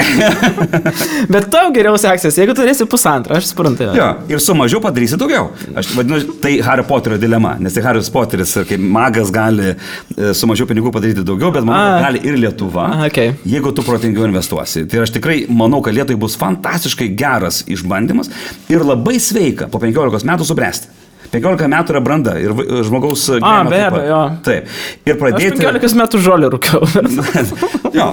Bet tau geriau seksis, jeigu turėsi 1,5, aš suprantu. Ir su mažiau padarysi daugiau. Aš vadinu, tai Hario Poterio dilema, nes tai Haris Poteris kaip magas gali su mažiau pinigų padaryti daugiau, bet manau, gali ir Lietuva, jeigu tu protingiau investuosi. Tai aš tikrai manau, kad Lietuvai bus fantastiškai geras išbandymas ir labai sveika po 15 metų subręsti. 15 metų yra branda ir žmogaus gyvenimo. Be abejo. Taip. Ir pradėti... Aš 15 metų žolį rūkiau. Jo,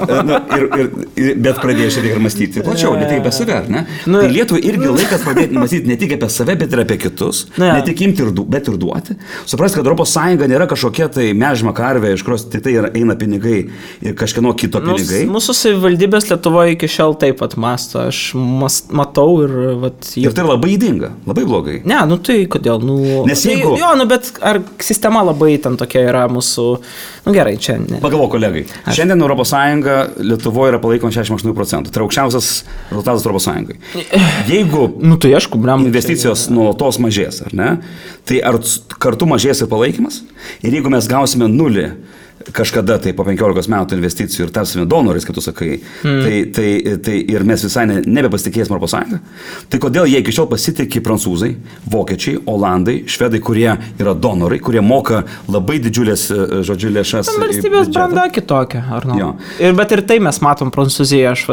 bet pradėjai šiek tiek ir mąstyti plačiau, ne tik apie save, ne? Tai Lietuvai irgi laikas pradėti mąstyti ne tik apie save, bet ir apie kitus, ne tik imti, bet ir duoti. Suprasti, kad ES nėra kažkokia tai mežma karvė, iš kurios tai eina pinigai ir kažkieno kito pinigai. Mūsų savivaldybės Lietuvoje iki šiol taip pat mąsto, aš matau ir... Ir tai labai ydinga, labai blogai. Ne, tai kodėl, Nes jeigu... Jo, bet ar sistema labai ten tokia yra mūsų... Gerai, čia ne. Pagalvok, kolegai. Šiandien ES Lietuvoje yra palaikoma 68%. Tai yra aukščiausias rezultatas ES. Jeigu tai aišku, investicijos nuolatos mažės, ar ne? Tai ar kartu mažės ir palaikymas? Ir jeigu mes gausime nulį kažkada tai po 15 metų investicijų ir tapsime donorais, kaip tu sakai, tai ir mes visai nebepasitikėsime ES. Tai kodėl jie iki šiol pasitikė prancūzai, vokiečiai, olandai, švedai, kurie yra donorai, kurie moka labai didžiulės, žodžiu, lėšas. Valstybės branda kitokia, ar ne? Bet ir tai mes matom Prancūzijoje, aš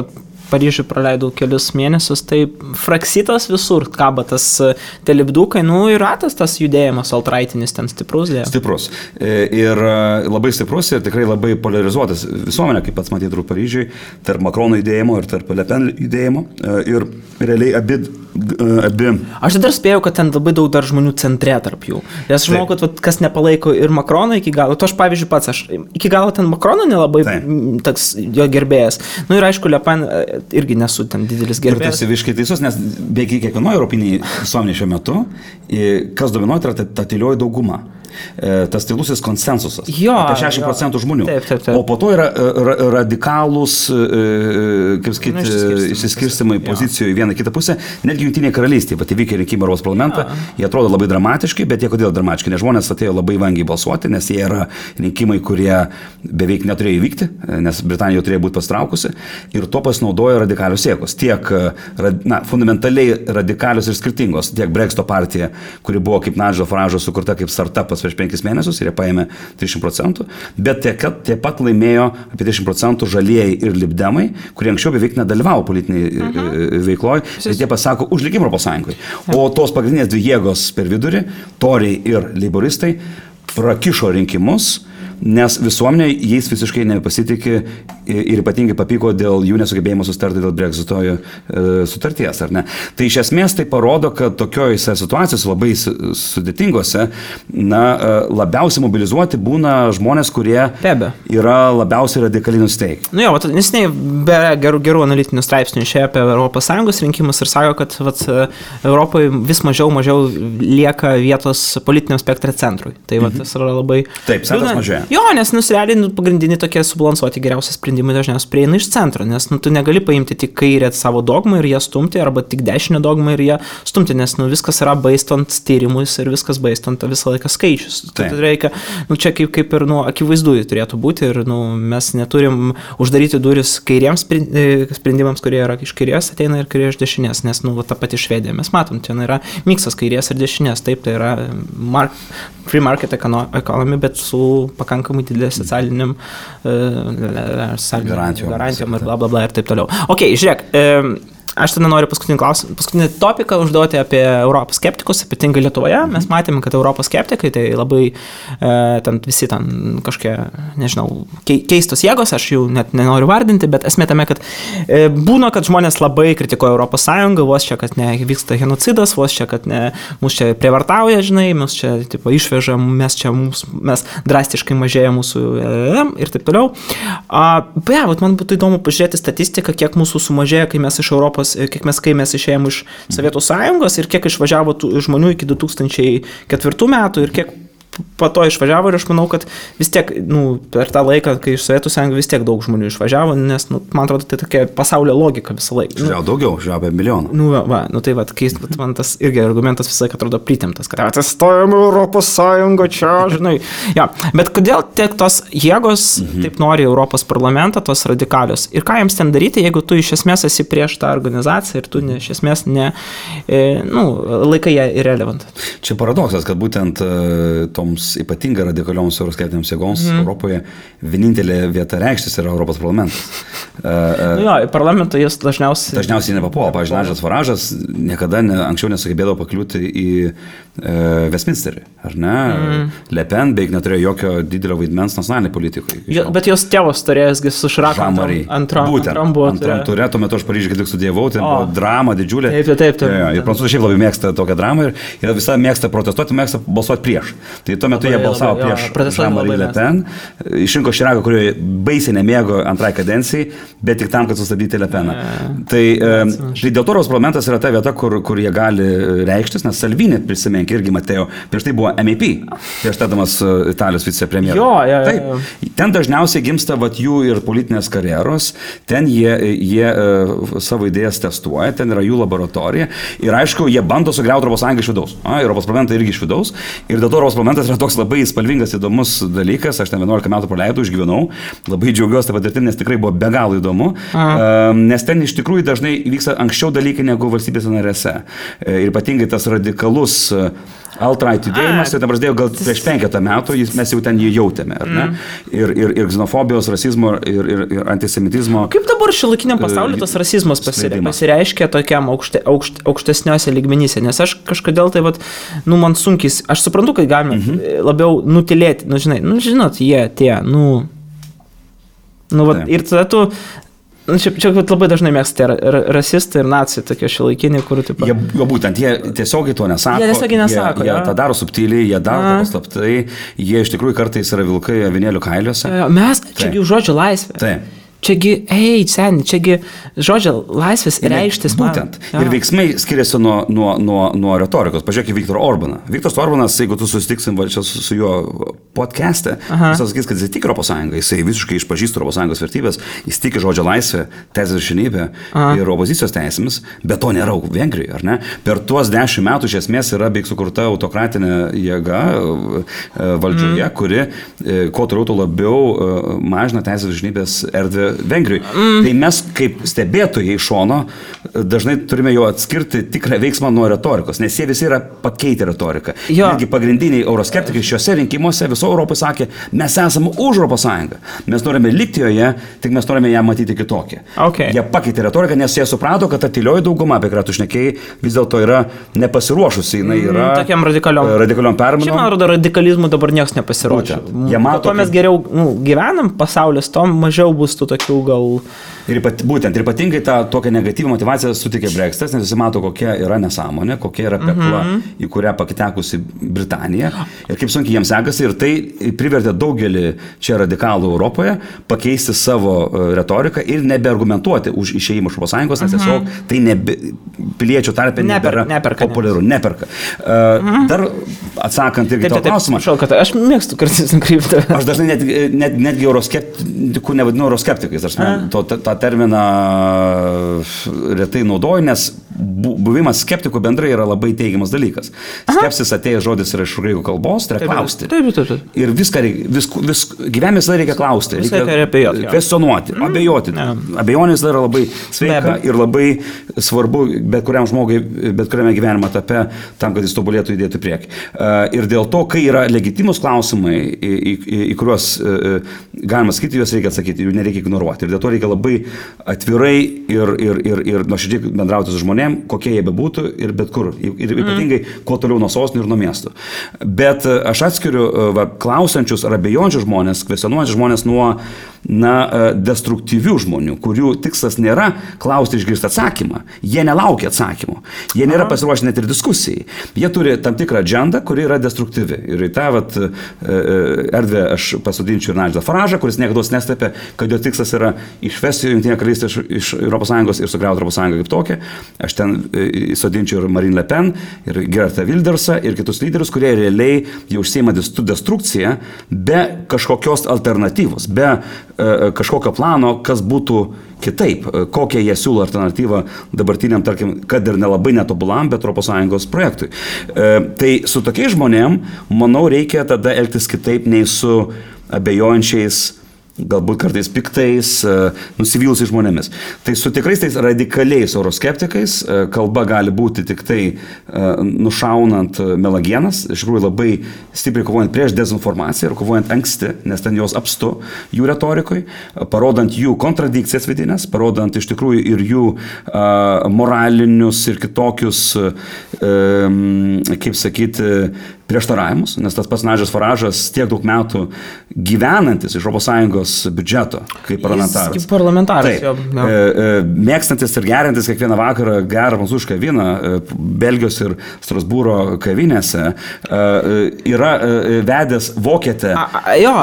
Paryžiui praleidau kelius mėnesius, tai fraksitas visur kaba tas telipdukai, ir ratas tas judėjimas altraitinis ten stiprus dėjo. Stiprus. Ir labai stiprus ir tikrai labai polarizuotas visuomenė, kaip pats matyti Paryžiui, tarp Makrono judėjimo ir tarp Le Pen judėjimo. Ir realiai abi... Aš dar spėjau, kad ten labai daug dar žmonių centre tarp jų. Nes aš žinau, kad kas nepalaiko ir Makroną iki galo, to aš pavyzdžiui pats, aš iki galo ten Makrono nelabai toks jo gerbėjas. Ir aišku, Le Pen irgi nesu ten didelis gerbėjas. Ir tu esi visiškai teisus, nes beveik kiekvienoje europinėje visuomenėje šiuo metu, kas dominuoja, tai ta tylioji dauguma. Tas tylusis konsensusas. Apie 60% žmonių. Taip. O po to yra radikalūs, kaip sakyti, išsiskirstimai pozicijų į vieną kitą pusę. Netgi Jungtinėje karalystėje, bet įvykę rinkimai Europos parlamentą, jie atrodo labai dramatiški, bet jie kodėl dramatiški? Nes žmonės atėjo labai vangiai balsuoti, nes jie yra rinkimai, kurie beveik neturėjo įvykti, nes Britanija jau turėjo būti pastraukusi. Ir to pasinaudojo radikalios jėgos. Tiek fundamentaliai radikalios ir skirtingos. Tiek Brexito partija, kuri buvo kaip Nigel Farage sukurta kaip startupas prieš 5 mėnesius ir jie paėmė 30%, bet taip pat laimėjo apie 30% žalieji ir libdemai, kurie anksčiau beveik nedalyvavo politiniai veikloje, bet jie pasako už likimą Europos Sąjungoje. O tos pagrindinės dvi jėgos per vidurį, toriai ir leiboristai, prakišo rinkimus, nes visuomenė jais visiškai nepasitikė ir ypatingai papyko dėl jų nesugebėjimo sustarti dėl Brexito sutarties, ar ne? Tai iš esmės tai parodo, kad tokiojose situacijose labai sudėtingose, labiausiai mobilizuoti būna žmonės, kurie yra labiausiai radikaliai nusteikę. Nesiniai be gerų analitinių straipsnių išėjo apie ES rinkimus ir sako, kad Europoje vis mažiau lieka vietos politiniam spektre centrui. Tai tas yra labai... Taip, centras mažėja. Jo, nes realiai pagrindiniai tokie subalansuoti geriausi sprendimai dažniausiai prieina iš centro, nes tu negali paimti tik kairę savo dogmą ir ją stumti, arba tik dešinę dogmą ir ją stumti, nes viskas yra baistant tyrimus ir viskas baistant visą laiką skaičius. Tai reikia, čia kaip ir akivaizdu turėtų būti ir mes neturim uždaryti duris kairiems sprendimams, kurie yra iš kairės ateina ir kurie iš dešinės, nes ta pati Švedija, mes matom, ten yra miksas kairės ir dešinės, taip, tai yra free market economy, bet su pakankamai didelė socialiniam garantijom ir blablabla ir taip toliau. Ok, žiūrėk, aš tada noriu paskutinį topiką užduoti apie Europos skeptikus, ypatingai Lietuvoje. Mes matėme, kad Europos skeptikai tai labai visi kažkokie, nežinau, keistos jėgos, aš jų net nenoriu vardinti, bet esmė tame, kad būna, kad žmonės labai kritikuoja Europos Sąjungą, vos čia, kad nevyksta genocidas, vos čia, kad mus čia prievartauja, žinai, mus čia išveža, mes drastiškai mažėja mūsų ir taip toliau. Man būtų įdomu pažiūrėti statistiką, kiek mūsų sumažėja, kai mes iš Europos, kai mes išėjom iš Sovietų Sąjungos ir kiek išvažiavo žmonių iki 2004 metų ir kiek po to išvažiavo ir aš manau, kad vis tiek, per tą laiką, kai iš Sovietų Sąjungos vis tiek daug žmonių išvažiavo, nes, man atrodo, tai tokia pasaulio logika visą laiką. Daugiau, apie milijoną. Keist, man tas irgi argumentas visą laiką atrodo pritemtas, kad atsistojame Europos Sąjungą čia, žinai. Ja, bet kodėl tiek tos jėgos taip nori Europos parlamentą, tos radikalios? Ir ką jiems ten daryti, jeigu tu iš esmės esi prieš tą organizaciją ir tu iš esmės laikai ją irrelevant? Čia paradoksas, kad būtent tom toms ypatingai radikalioms euroskeptinėms jėgoms Europoje vienintelė vieta reikštis yra Europos parlamentas. Parlamentą jis dažniausiai nepapuola. Pavyzdžiui, Nigel Farage'as niekada anksčiau nesugebėdavo pakliūti į Westminsterį, ar ne? Le Pen beveik neturėjo jokio didelio vaidmens nacionaliniai politikai. Bet jos tėvas turėjęsgi su Širaku antram turė, tuo metu aš Paryžiuje kaip tik studijavau, tai buvo drama didžiulė. Taip. Ir prancūzai šiaip labai mėgsta tokią dramą ir visą mėgsta protestuoti, mėgsta balsuoti prieš. Tai tuo metu jie balsavo prieš Jean-Marie Le Pen, išrinko Širaką, kurio baisiai nemėgo antrai kadencijai, bet tik tam, kad sustabdyti Le Peną. Tai dėl to Europos parlamentas yra ta vieta, kur jie gali reikštis, nes Salvini, prisimink, irgi Mateo, prieš tai buvo MEP, prieš tadamas Italijos vicepremjeras. Taip, ten dažniausiai gimsta jų ir politinės karjeros, ten jie savo idėjas testuoja, ten yra jų laboratorija ir aišku, jie bando sugriauti Europos Sąjungą iš vidaus. Europos parlamentą irgi iš vidaus ir dėl to Europos parlamentas yra toks labai spalvingas, įdomus dalykas, aš ten 11 metų praleidau, išgyvenau, labai džiaugiuosi tą patirtim, nes tikrai buvo be galo įdomu, nes ten iš tikrųjų dažnai vyksta anksčiau dalykai negu valstybėse narėse. Ir ypatingai tas radikalus alt-right judėjimas, tai prasidėjo gal prieš 5 metų, mes jau ten jį jautėme, ar ne? Ir xenofobijos, rasizmo ir antisemitizmo. Kaip dabar šiuolaikiniam pasaulyje tas rasizmas pasireiškia tokiam aukštesniuose lygmenyse? Nes aš kažkodėl tai, man sunkiai, aš suprantu, kad galime labiau nutilėti, žinot, ir tada tu Čia labai dažnai mėgsta rasistai ir nacijai tokie šiuolaikiniai, kur taip pat. Būtent, jie tiesiogiai to nesako. Jie tą daro subtiliai, jie daro paslaptai, jie iš tikrųjų kartais yra vilkai avinėlių kailiuose. Mes, čiagi žodžio laisvė. Taip. Čiagi žodžio laisvės reikštis. Būtent. Ir veiksmai skiriasi nuo retorikos. Pažiūrėk į Viktorą Orbaną. Viktoras Orbanas, jeigu tu susitiksim su juo podcast'e, jis sakys, kad jis tik Europos Sąjunga, jisai visiškai išpažįsta Europos Sąjungos vertybės, jis tiki žodžio laisvę, teisės viršenybę ir opozicijos teisėmis, bet to nėra Vengrijoje, ar ne? Per tuos 10 metų iš esmės yra beveik sukurta autokratinė jėga valdžioje, kuri kuo toliau to labiau mažina teisės viršenybės erdvę Vengrijai. Tai mes kaip stebėtojai iš šono dažnai turime jau atskirti tikrą veiksmą nuo retorikos, nes jie visi yra pakeitę retoriką. Netgi pagrindiniai euroskeptikai šiuose rinkimuose viso Europai sakė, mes esame už Europos Sąjungą. Mes norime likti joje, tik mes norime ją matyti kitokią. Jie pakeitė retoriką, nes jie suprato, kad ta tylioji dauguma, apie kurią tu šnekėjai, vis dėlto yra nepasiruošusi. Jinai yra tokiam radikaliom permainom. Šiaip man rodo, radikalizmų dabar niekas nepasiruošia. Kuo mes geriau gyvenam pasaulis, to mažiau bus tų tokių gal. Ir ypatingai tą tokią negatyvą motivaciją sutikė Brexitas, nes visi mato, kokia yra nesąmonė, kokia yra pekla, į kurią pakitekusi Britanija ir kaip sunkiai jiems sekasi, ir tai privertė daugelį čia radikalų Europoje pakeisti savo retoriką ir nebeargumentuoti už išėjimą iš Europos Sąjungos, nes tiesiog tai piliečių tarpe nebėra populiaru, neperka. Dar atsakant irgi tą klausimą. Aš mėgstu kartais nukrypti. Aš dažnai netgi euroskeptikų nevadinu euroskeptikais, tą terminą retai naudoju, nes buvimas skeptikų bendrai yra labai teigiamas dalykas. Skepsis atėjęs žodis yra iš graikų kalbos, tai yra klausti. Ir gyvenime visada reikia klausti, reikia kvestionuoti, abejoti. Abejonės yra labai sveika ir labai svarbu bet kuriam žmogui, bet kuriame gyvenimo etape, tam, kad jis tobulėtų judėti priekį. Ir dėl to, kai yra legitimus klausimai, į kuriuos galima sakyti, juos reikia atsakyti, jų nereikia ignoruoti. Ir dėl to reikia labai atvirai ir nuoširdžiai bendrauti su žmonėm, kokie jie bebūtų ir bet kur. Ir ypatingai, kuo toliau nuo sostinių ir nuo miestų. Bet aš atskiriu klausančius ar abejončius žmonės, kvestionuojančius žmonės nuo destruktyvių žmonių, kurių tikslas nėra klausti išgirsti atsakymą. Jie nelaukia atsakymų. Jie nėra pasiruošę net ir diskusijai. Jie turi tam tikrą agendą, kuri yra destruktyvi. Ir į tą erdvę aš pasodinčiau ir Nigelą Farage'ą, kuris niekada neslėpė, kad jo tikslas yra išvesti Jungtinę karalystę iš Europos Sąjungos ir sugriauti Europos Sąjungą kaip tokią. Aš ten sodinčiau ir Marine Le Pen, ir Geertą Wildersą, ir kitus lyderius, kurie realiai jau užsiima destrukciją be kažkokios alternatyvos, be kažkokio plano, kas būtų kitaip, kokią jie siūlo alternatyvą dabartiniam, tarkim, kad ir nelabai netobulam, bet Europos Sąjungos projektui. Tai su tokiais žmonėm, manau, reikia tada elgtis kitaip nei su abejojančiais galbūt kartais piktais, nusivylusiais žmonėmis. Tai su tikrais tais radikaliais euroskeptikais kalba gali būti tik tai nušaunant melagienas, iš tikrųjų labai stipriai kovojant prieš dezinformaciją ir kovojant anksti, nes ten jos apstu jų retorikoj, parodant jų kontradikcijas vidinės, parodant iš tikrųjų ir jų moralinius ir kitokius, kaip sakyti, prieštaravimus, nes tas pats Nigel Farage'as tiek daug metų gyvenantis iš ES biudžeto kaip parlamentaras. Kaip parlamentaras. Mėgstantis ir gerintis kiekvieną vakarą gerą prancūzišką vyną Belgijos ir Strasbūro kavinėse, yra vedęs vokietę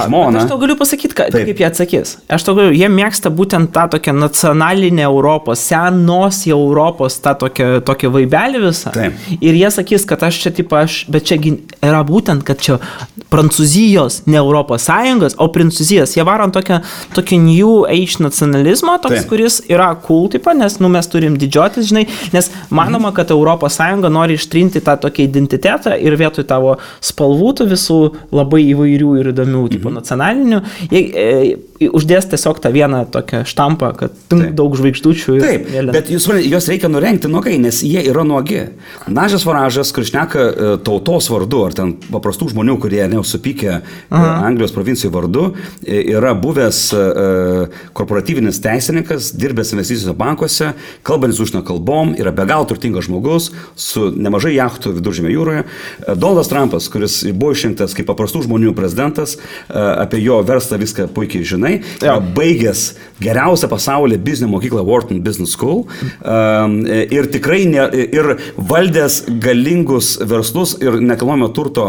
žmoną. Aš tau galiu pasakyti, kaip jie atsakys. Jie mėgsta būtent tą tokią nacionalinę Europos, senos Europos, tą tokią vaibelį visą. Taip. Ir jie sakys, kad aš čia bet čia yra būtent, kad čia Prancūzijos, ne Europos Sąjungos, o Prancūzijos. Jie varo tokį new age nacionalizmo, toks, kuris yra cool, nes mes turim didžiotis, žinai, nes manoma, kad Europos Sąjunga nori ištrinti tą tokį identitetą ir vietoj tavo spalvų visų labai įvairių ir įdomių nacionalinių, uždės tiesiog tą vieną tokią štampą, kad daug žvaigždučių. Taip, bet juos reikia nurengti nuogai, nes jie yra nuogi. Nigel Farage'as, kuris šneka tautos vardu, ar ten paprastų žmonių, kurie neusupykė Anglijos provincijų vardu, yra buvęs korporatyvinis teisininkas, dirbęs investicijos bankuose, kalbantis užsienio kalbom, yra be galo turtingas žmogus, su nemažai jachtų Viduržemio jūroje. Donaldas Trumpas, kuris buvo išrinktas kaip paprastų žmonių prezidentas, apie jo verslą viską puikiai žinai, baigęs geriausią pasaulyje biznio mokyklą Wharton Business School ir tikrai ir valdęs galingus verslus ir nekilnojamo turto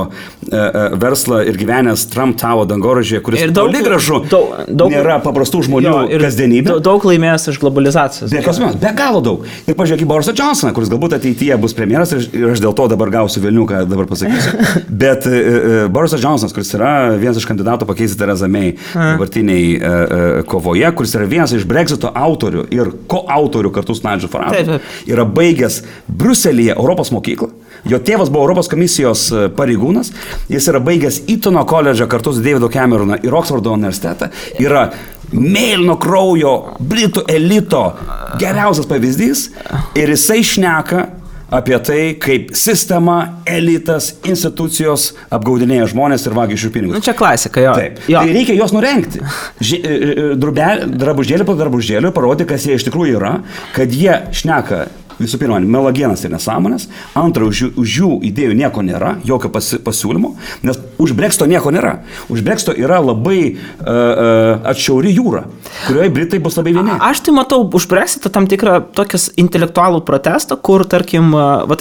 verslą ir gyvenęs Trump Tower dangoraižyje, kuris toli gražu nėra paprastų žmonių kasdienybė. Daug laimėjęs iš globalizacijos. Be galo daug. Ir pažiūrėk į Borisą Johnsoną, kuris galbūt ateityje bus premjeras ir aš dėl to dabar gausiu velnių, ką dabar pasakysiu. Bet Borisas Johnsonas, kuris yra vienas iš kandidatų pakeisti Theresa May dabartiniai kovoje, kuris yra vienas iš Brexito autorių ir koautorių kartu su Nigel Farage, yra baigęs Briuselyje Europos mokyklą. Jo tėvas buvo Europos komisijos pareigūnas, jis yra baigęs Eatono koledžą kartu su Davidu Cameroną ir Oksfordo universitetą, yra mėlyno kraujo britų elito geriausias pavyzdys ir jisai šneka apie tai, kaip sistema, elitas, institucijos apgaudinėja žmonės ir vagia iš jų pinigus. Čia klasika, jo. Taip. Tai reikia juos nurengti. Drabužėlį po drabužėlį parodyti, kas jie iš tikrųjų yra, kad jie šneka visų pirma, melagienas ir nesąmonės, antra, už jų idėjų nieko nėra, jokio pasiūlymo, nes už Brexito nieko nėra. Už Brexito yra labai atšiauri jūra, kurioje Britai bus labai vieni. Aš tai matau už Brexito tam tikrą tokias intelektualų protestą, kur, tarkim,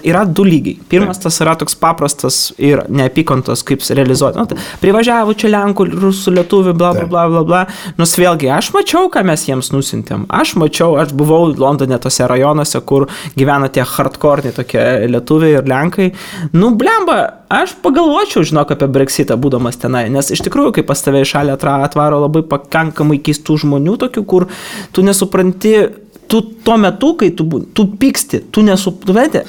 yra du lygiai. Pirmas tas yra toks paprastas ir neapykantos, kaip realizuoti. Privažiavo čia Lenkų, Rusų, Lietuvių, bla, bla, bla, bla, bla. Nors vėlgi, aš mačiau, ką mes jiems nusintėm. Aš buvau Londone tose rajonuose, kur gyvena tie hardcore tokie lietuviai ir lenkai. Blemba, aš pagalvočiau, žinok, apie Brexitą būdamas tenai, nes iš tikrųjų, kai pas tave į šalį atvaro labai pakankamai keistų žmonių tokių, kur tu nesupranti, tu tuo metu, kai tu pyksti, tu nesupranti,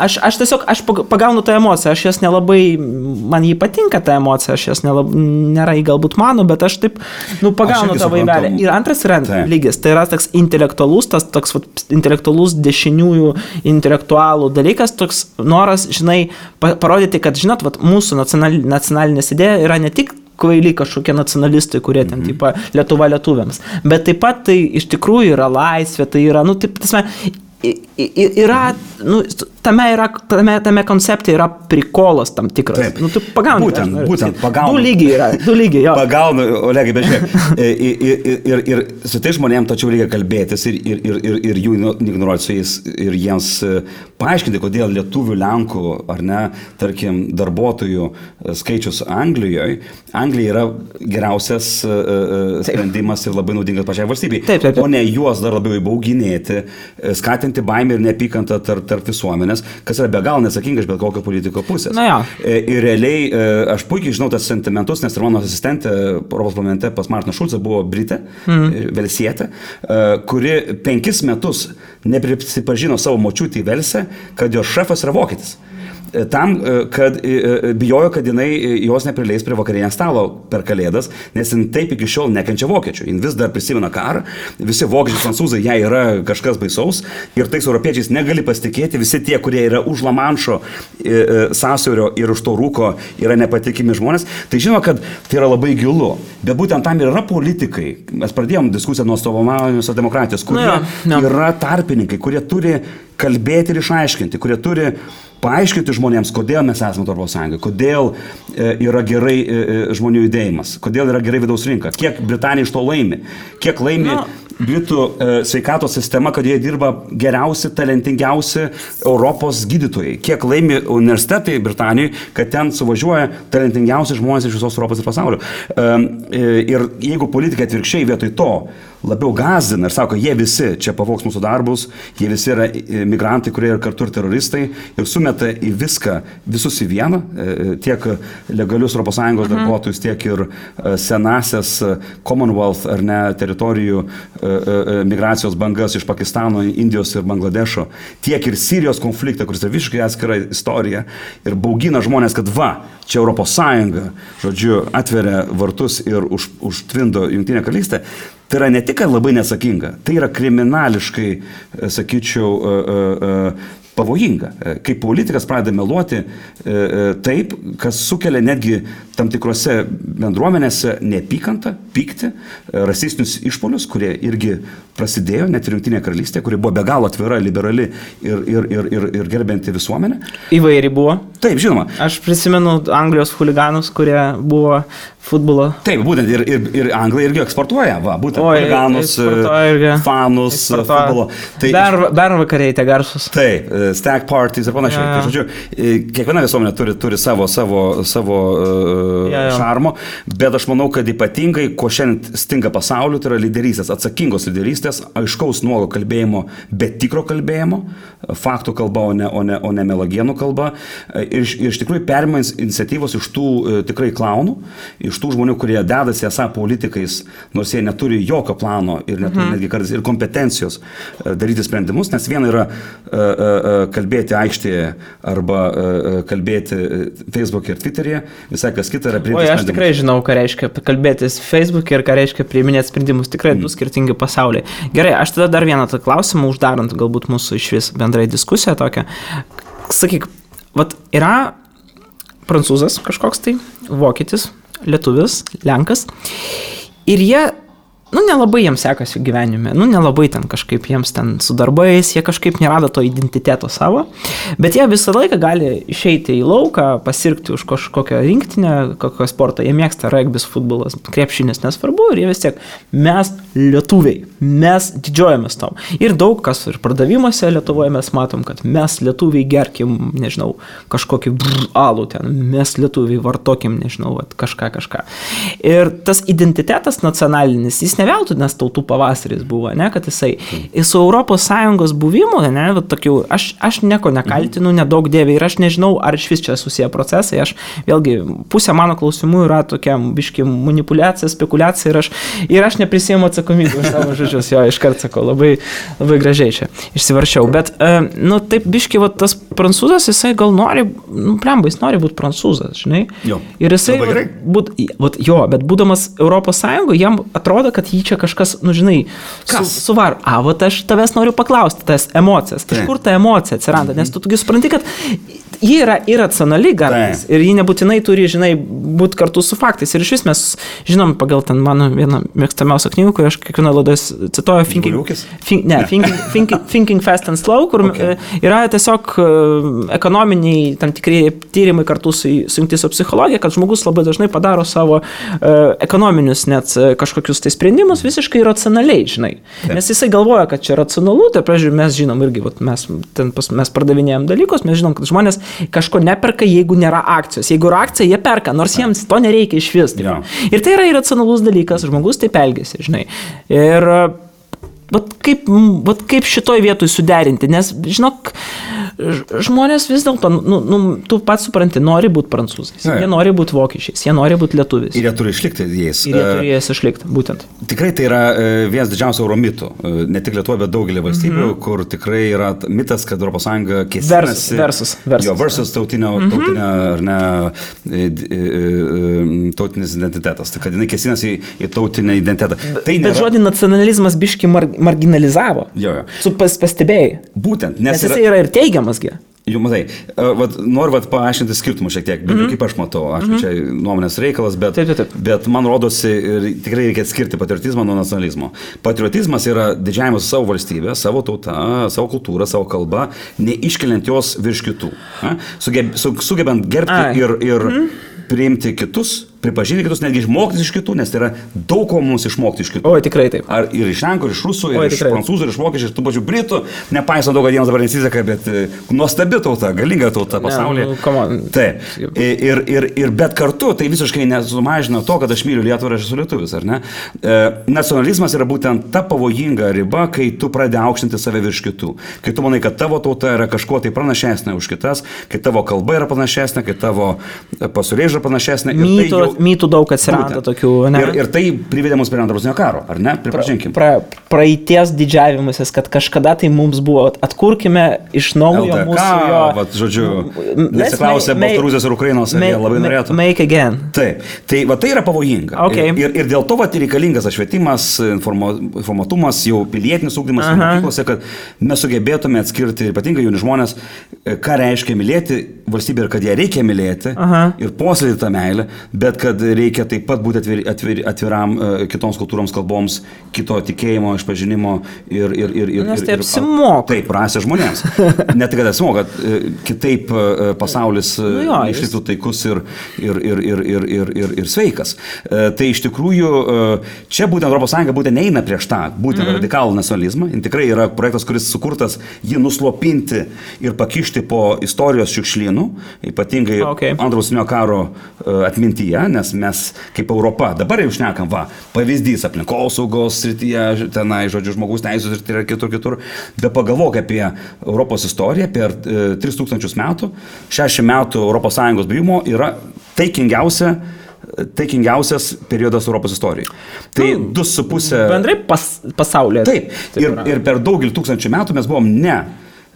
aš tiesiog, aš pagaunu tą emociją, aš jas nelabai, man jį patinka tą emociją, aš jas nėra į galbūt mano, bet aš taip, pagaunu tą vaibelį. Ir antras yra lygis, tai yra toks intelektualus, toks intelektualus dešiniųjų intelektualų dalykas, toks noras, žinai, parodyti, kad, žinot, mūsų nacionalinės idėja yra ne tik kvailiai kažkokie nacionalistai, kurie ten, tipo, Lietuva lietuviams. Bet taip pat tai iš tikrųjų yra laisvė, tai yra, taip, yra, tame koncepte yra prikolas tam tikras. Taip. Tu pagauni. Būtent, pagauni. Du lygiai, jo. Pagauni, Olegai, bet žiūrėk, ir su tai žmonėm tačiau reikia kalbėtis ir jų ignoruoti su jais ir jiems paaiškinti, kodėl lietuvių, lenkų, ar ne, tarkim, darbuotojų skaičius Anglijoje. Anglija yra geriausias sprendimas ir labai naudingas pačiai valstybei. Taip. O ne juos dar labiau įbauginėti, skatinti baimę ir neapykantą tarp visuomenės, kas yra be galo neatsakinga iš bet kokio politiko pusės. Ir realiai aš puikiai žinau tas sentimentus, nes ir mano asistentė Europos parlamente pas Martiną Šulcą buvo Britė, velsietė, kuri 5 metus neprisipažino savo močiutį Velse, kad jos šefas yra vokietis. tam, kad bijojo, kad jinai jos neprileis prie vakarienės stalo per Kalėdas, nes jin taip iki šiol nekenčia vokiečių. Jin vis dar prisimena karą, visi vokiečiai, prancūzai, jai yra kažkas baisaus ir tais europiečiais negali pasitikėti, visi tie, kurie yra už Lamanšo sąsiaurio ir už to rūko yra nepatikimi žmonės. Tai žinoma, kad tai yra labai gilu, bet būtent tam ir yra politikai. Mes pradėjom diskusiją nuo atstovaujamos demokratijos, kurie yra tarpininkai, kurie turi kalbėti ir išaiškinti, kurie turi paaiškinti žmonėms, kodėl mes esame Europos Sąjungoje, kodėl yra gerai žmonių judėjimas, kodėl yra gerai vidaus rinka, kiek Britanija iš to laimi, kiek laimi Britų sveikatos sistema, kad jie dirba geriausi, talentingiausi Europos gydytojai, kiek laimi universitetai Britanijoje, kad ten suvažiuoja talentingiausi žmonės iš visos Europos ir pasaulio. Ir jeigu politikai atvirkščiai vietoj to labiau gąsdina ir sako, jie visi čia pavogs mūsų darbus, jie visi yra migrantai, kurie yra kartu ir teroristai ir sumeta į viską, visus į vieną, tiek legalius ES darbuotojus, tiek ir senasias Commonwealth ar ne teritorijų migracijos bangas iš Pakistano, Indijos ir Bangladešo, tiek ir Sirijos konfliktą, kuris yra visiškai atskira istorija ir baugina žmonės, kad čia ES, žodžiu, atveria vartus ir užtvindo Jungtinę karalystę. Tai yra ne tik labai neatsakinga, tai yra kriminališkai, sakyčiau, pavojinga. Kai politikas pradeda meluoti taip, kas sukelia netgi tam tikrose bendruomenėse neapykantą, pyktį, rasistinius išpolius, kurie irgi prasidėjo net ir Jungtinėje karalystėje, kuri buvo be galo atvira, liberali ir gerbinti visuomenę. Įvairi buvo. Taip, žinoma. Aš prisimenu Anglijos huliganus, kurie buvo futbolo. Taip, būtent ir Anglija irgi eksportuoja, būtent huliganus, fanus, futbolo. Tai, Bernvakariai tie garsus. Taip, stag parties ir panašiai. Tai, žodžiu, kiekviena visuomenė turi savo šarmo, bet aš manau, kad ypatingai, ko šiandien stinga pasauliu, tai yra lyderystės, atsakingos lyderystės, aiškaus nuogo kalbėjimo, bet tikro kalbėjimo, faktų kalba, o ne melagienų kalba. Ir iš tikrųjų perima iniciatyvos iš tų tikrai klaunų, iš tų žmonių, kurie dedasi esą politikais, nors jie neturi jokio plano ir neturi netgi kartais ir kompetencijos daryti sprendimus, nes viena yra kalbėti aikštėje arba kalbėti Facebook'e ir Twitter'e, visai kas kita yra priimti sprendimus. Aš tikrai žinau, ką reiškia kalbėtis Facebook'e ir ką reiškia priiminėti sprendimus, tikrai du skirtingi pasauliai. Gerai, aš tada dar vieną tą klausimą uždarant galbūt mūsų iš vis bendrai diskusiją tokią. Sakyk, yra prancūzas kažkoks tai, vokietis, lietuvis, lenkas ir jie nelabai jiems sekasi gyvenime, nelabai ten kažkaip jiems ten su darbais, jie kažkaip nerado to identiteto savo, bet jie visą laiką gali išeiti į lauką, pasirgti už kažkokią rinktinę, kokią sportą, jie mėgsta regbis, futbolas, krepšinis, nesvarbu, ir jie vis tiek, mes lietuviai, mes didžiuojamės tom. Ir daug kas ir pardavimuose Lietuvoje mes matom, kad mes lietuviai gerkim, nežinau, kažkokį alų ten, mes lietuviai vartokim, nežinau, kažką. Ir tas identitetas nacionalinis, jis ne veltui, nes tautų pavasaris buvo, ne, kad jisai su ES buvimu, ne, tokių, aš nieko nekaltinu, nedaug dėvė ir aš nežinau, ar iš vis čia susiję procesai, aš vėlgi, pusė mano klausimų yra tokia biški manipuliacija, spekulacija ir aš neprisiimu atsakomybę už savo žodžius, jo, iškart sakau, labai, labai gražiai čia išsivaršiau, bet, taip biški, tas prancūzas, jisai gal nori, jis nori būti prancūzas, žinai, jo, ir jisai, bet būdamas ES, jam atrodo, kad jį čia kažkas, žinai, suvar. Aš tavęs noriu paklausti, tas emocijas. Iš kur ta emocija atsiranda? Nes tu supranti, kad ji yra irracionali gardas ir ji nebūtinai turi, žinai, būti kartu su faktais. Ir iš vis mes žinom, pagal ten mano vieną mėgstamiausią knygą, kur aš kiekvieną laidą cituoju Thinking Fast and Slow, kur yra tiesiog ekonominiai tam tikri tyrimai kartu sujungti su psichologija, kad žmogus labai dažnai padaro savo ekonominius net kažkokius tai sprendimus visiškai racionaliai, žinai. Nes jisai galvoja, kad čia racionalu, tai pavyzdžiui, mes žinom irgi, mes pardavinėjom dalykus, mes žinom, kad žmonės kažko neperka, jeigu nėra akcijos. Jeigu yra akcija, jie perka, nors jiems to nereikia iš vis. Ir tai yra iracionalus dalykas, žmogus taip elgiasi, žinai. Ir kaip šitoj vietoj suderinti, nes, žinok, žmonės vis dėlto, tu pats supranti, nori būti prancūzais, jie nori būti vokiečiais, jie nori būti lietuviais. Ir jie turi išlikti jais. Ir jie turi jais išlikti, būtent. Tikrai tai yra vienas didžiausių euromitų, ne tik Lietuvoje, bet daugelį valstybių, kur tikrai yra mitas, kad ES kėsinasi. Versus tautinio, ar ne, tautinis identitetas. Tai kad jinai kėsinasi į tautinį identitetą. Bet žodį nacionalizmas biški marginalizavo. Su pastebėjai. Būtent. Nes jisai yra ir teigiamasgi. Jau matai, noriu paaiškinti skirtumų šiek tiek, bet kaip aš matau, čia nuomonės reikalas, bet man rodosi, tikrai reikia atskirti patriotizmą nuo nacionalizmo. Patriotizmas yra didžiavimas savo valstybę, savo tautą, savo kultūrą, savo kalbą, neiškeliant jos virš kitų. Sugebant gerbti ir priimti kitus, pripažinti kitus, netgi išmokti iš kitų, nes tai yra daug ko mums išmokti iš kitų. Oi, tikrai taip. Ar ir iš lenkų, ir iš rusų, ir iš prancūzų, ir iš vokiečių, ir tų pačių britų, nepaisant to, kad jiems dabar nesiseka, bet nuostabi tauta, galinga tauta pasaulyje. Taip. Ir bet kartu tai visiškai nesumažina to, kad aš myliu Lietuvą ir aš esu lietuvis, ar ne? Nacionalizmas yra būtent ta pavojinga riba, kai tu pradedi aukštinti save virš kitų. Kai tu manai, kad tavo tauta yra kažkuo tai pranašesnė už kitas, kai tavo kalba yra panašesnė, kai tavo pasaulėžiūra panašesnė. Mytų daug atsiranda tokių, ne? Ir tai privedė mus prie Antro pasaulinio karo, ar ne? Pripažinkim. Praeities didžiavimasis, kad kažkada tai mums buvo, atkurkime iš naujo LDK, mūsų jo... Vat, žodžiu, nesiklausė Baltarusijos ir Ukrainos, ar jie labai norėtų. Make again. Taip. Tai yra pavojinga. Okay. Ir dėl to reikalingas švietimas, informatumas, jau pilietinis ugdymas mokyklose, kad mes sugebėtume atskirti, ypatingai jauni žmonės, ką reiškia mylėti valstybę ir kad ją reikia mylėti ir puoselėti tą meilę, bet kad reikia taip pat būti atviram kitoms kultūroms, kalboms, kito tikėjimo, išpažinimo ir nes tai apsimoka. Taip, rasė žmonėms. Ne tik, kad apsimoka, kitaip pasaulis išliktų taikus ir sveikas. Tai iš tikrųjų, čia būtent ES būtent neina prieš tą, būtent radikalų nacionalizmą. Tikrai yra projektas, kuris sukurtas jį nuslopinti ir pakišti po istorijos šiukšlynų, ypatingai Antro pasaulinio karo atmintyje, nes mes kaip Europa dabar jau šnekam, pavyzdys aplinkosaugos srityje, tenai, žodžiu, žmogaus teisės ir kitur. Bet pagalvok apie Europos istoriją per 3000 metų, 60 metų ES buvimo yra taikingiausias periodas Europos istorijai. Tai 2,5... Bendrai pasaulyje. Taip. Ir per daugelį tūkstančių metų mes buvom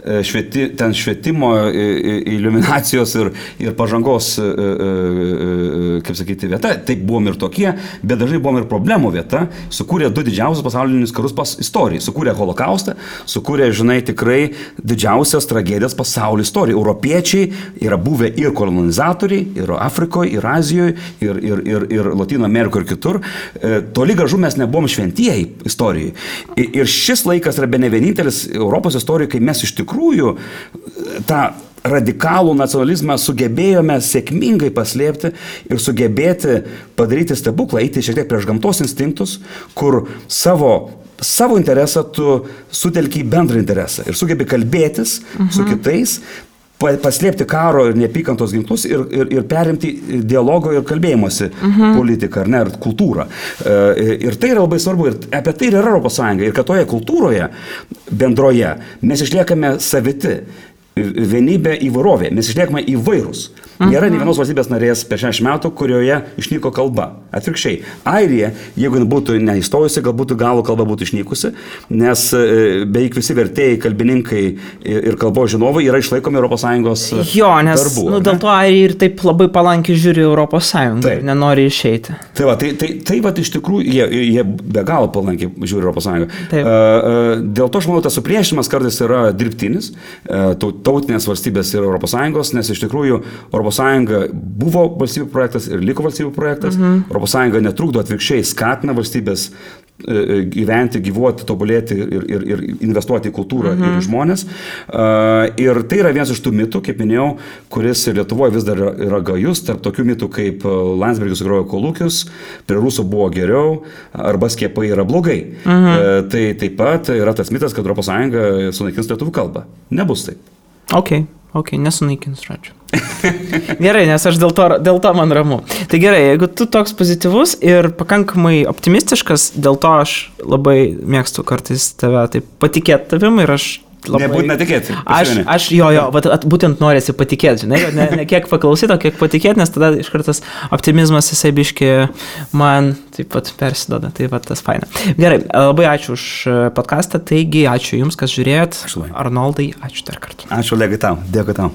švietimo, iliuminacijos ir pažangos, kaip sakyti, vieta. Taip buvom ir tokie, bet dažnai buvom ir problemų vieta. Sukūrė 2 didžiausius pasaulinius karus istorijai. Sukūrė Holokaustą, sukūrė, tikrai didžiausias tragedijas pasaulio istorijai. Europiečiai yra buvę ir kolonizatoriai, ir Afrikoje, ir Azijoje, ir Latino Amerikoje, ir kitur. Toli gražu mes nebuvom šventieji istorijai. Ir šis laikas yra bene vienintelis Europos istorijoje, kai mes iš tikrųjų tą radikalų nacionalizmą sugebėjome sėkmingai paslėpti ir sugebėti padaryti stebuklą, eiti šiek tiek prieš gamtos instinktus, kur savo interesą tu sutelki į bendrą interesą ir sugebi kalbėtis su kitais, paslėpti karo ir neapykantos ginklus ir perimti dialogo ir kalbėjimosi politiką, ar ne, ir kultūrą. Ir tai yra labai svarbu, ir apie tai yra ES, ir kad toje kultūroje bendroje mes išliekame saviti, vienybė įvairovė, mes išliekame įvairūs. Nėra nei vienos valstybės narės per 60 metų, kurioje išnyko kalba. Atvirkščiai. Airija, jeigu būtų neįstojusi, galbūt galų kalba būtų išnykusi, nes beveik visi vertėjai, kalbininkai ir kalbos žinovai yra išlaikomi ES jo, nes darbų. Dėl to Airija ir taip labai palankiai žiūri ES ir nenori išeiti. Tai iš tikrųjų, jie be galo palankiai žiūri ES. Dėl to, aš manau, tas supriešinimas kartais yra dirbtinis, tautinės valstybės ir ES, nes iš tikrųjų ES buvo valstybių projektas ir liko valstybių projektas. ES netrukdo, atvirkščiai skatina valstybės gyventi, gyvuoti, tobulėti ir investuoti į kultūrą ir į žmonės. Ir tai yra vienas iš tų mitų, kaip minėjau, kuris Lietuvoje vis dar yra gajus, tarp tokių mitų kaip Landsbergis sugrojo kolūkius, prie rusų buvo geriau, arba skiepai yra blogai. Tai taip pat yra tas mitas, kad ES sunaikins lietuvių kalbą. Nebus taip. Ok, nesunaikins, žodžiu. Gerai, nes aš dėl to man ramu. Tai gerai, jeigu tu toks pozityvus ir pakankamai optimistiškas, dėl to aš labai mėgstu kartais tave taip patikėti tavim ir aš labai... Nebūtina tikėti. Aš būtent norėsi patikėti, žinai, ne kiek paklausyti, o kiek patikėti, nes tada iš karto tas optimizmas jisai biški man taip pat persidoda, tai va tas faina. Gerai, labai ačiū už podcastą, taigi ačiū Jums, kas žiūrėjot. Arnoldai, ačiū dar kartą. Ačiū, Olegai, tau. Dėkui tau.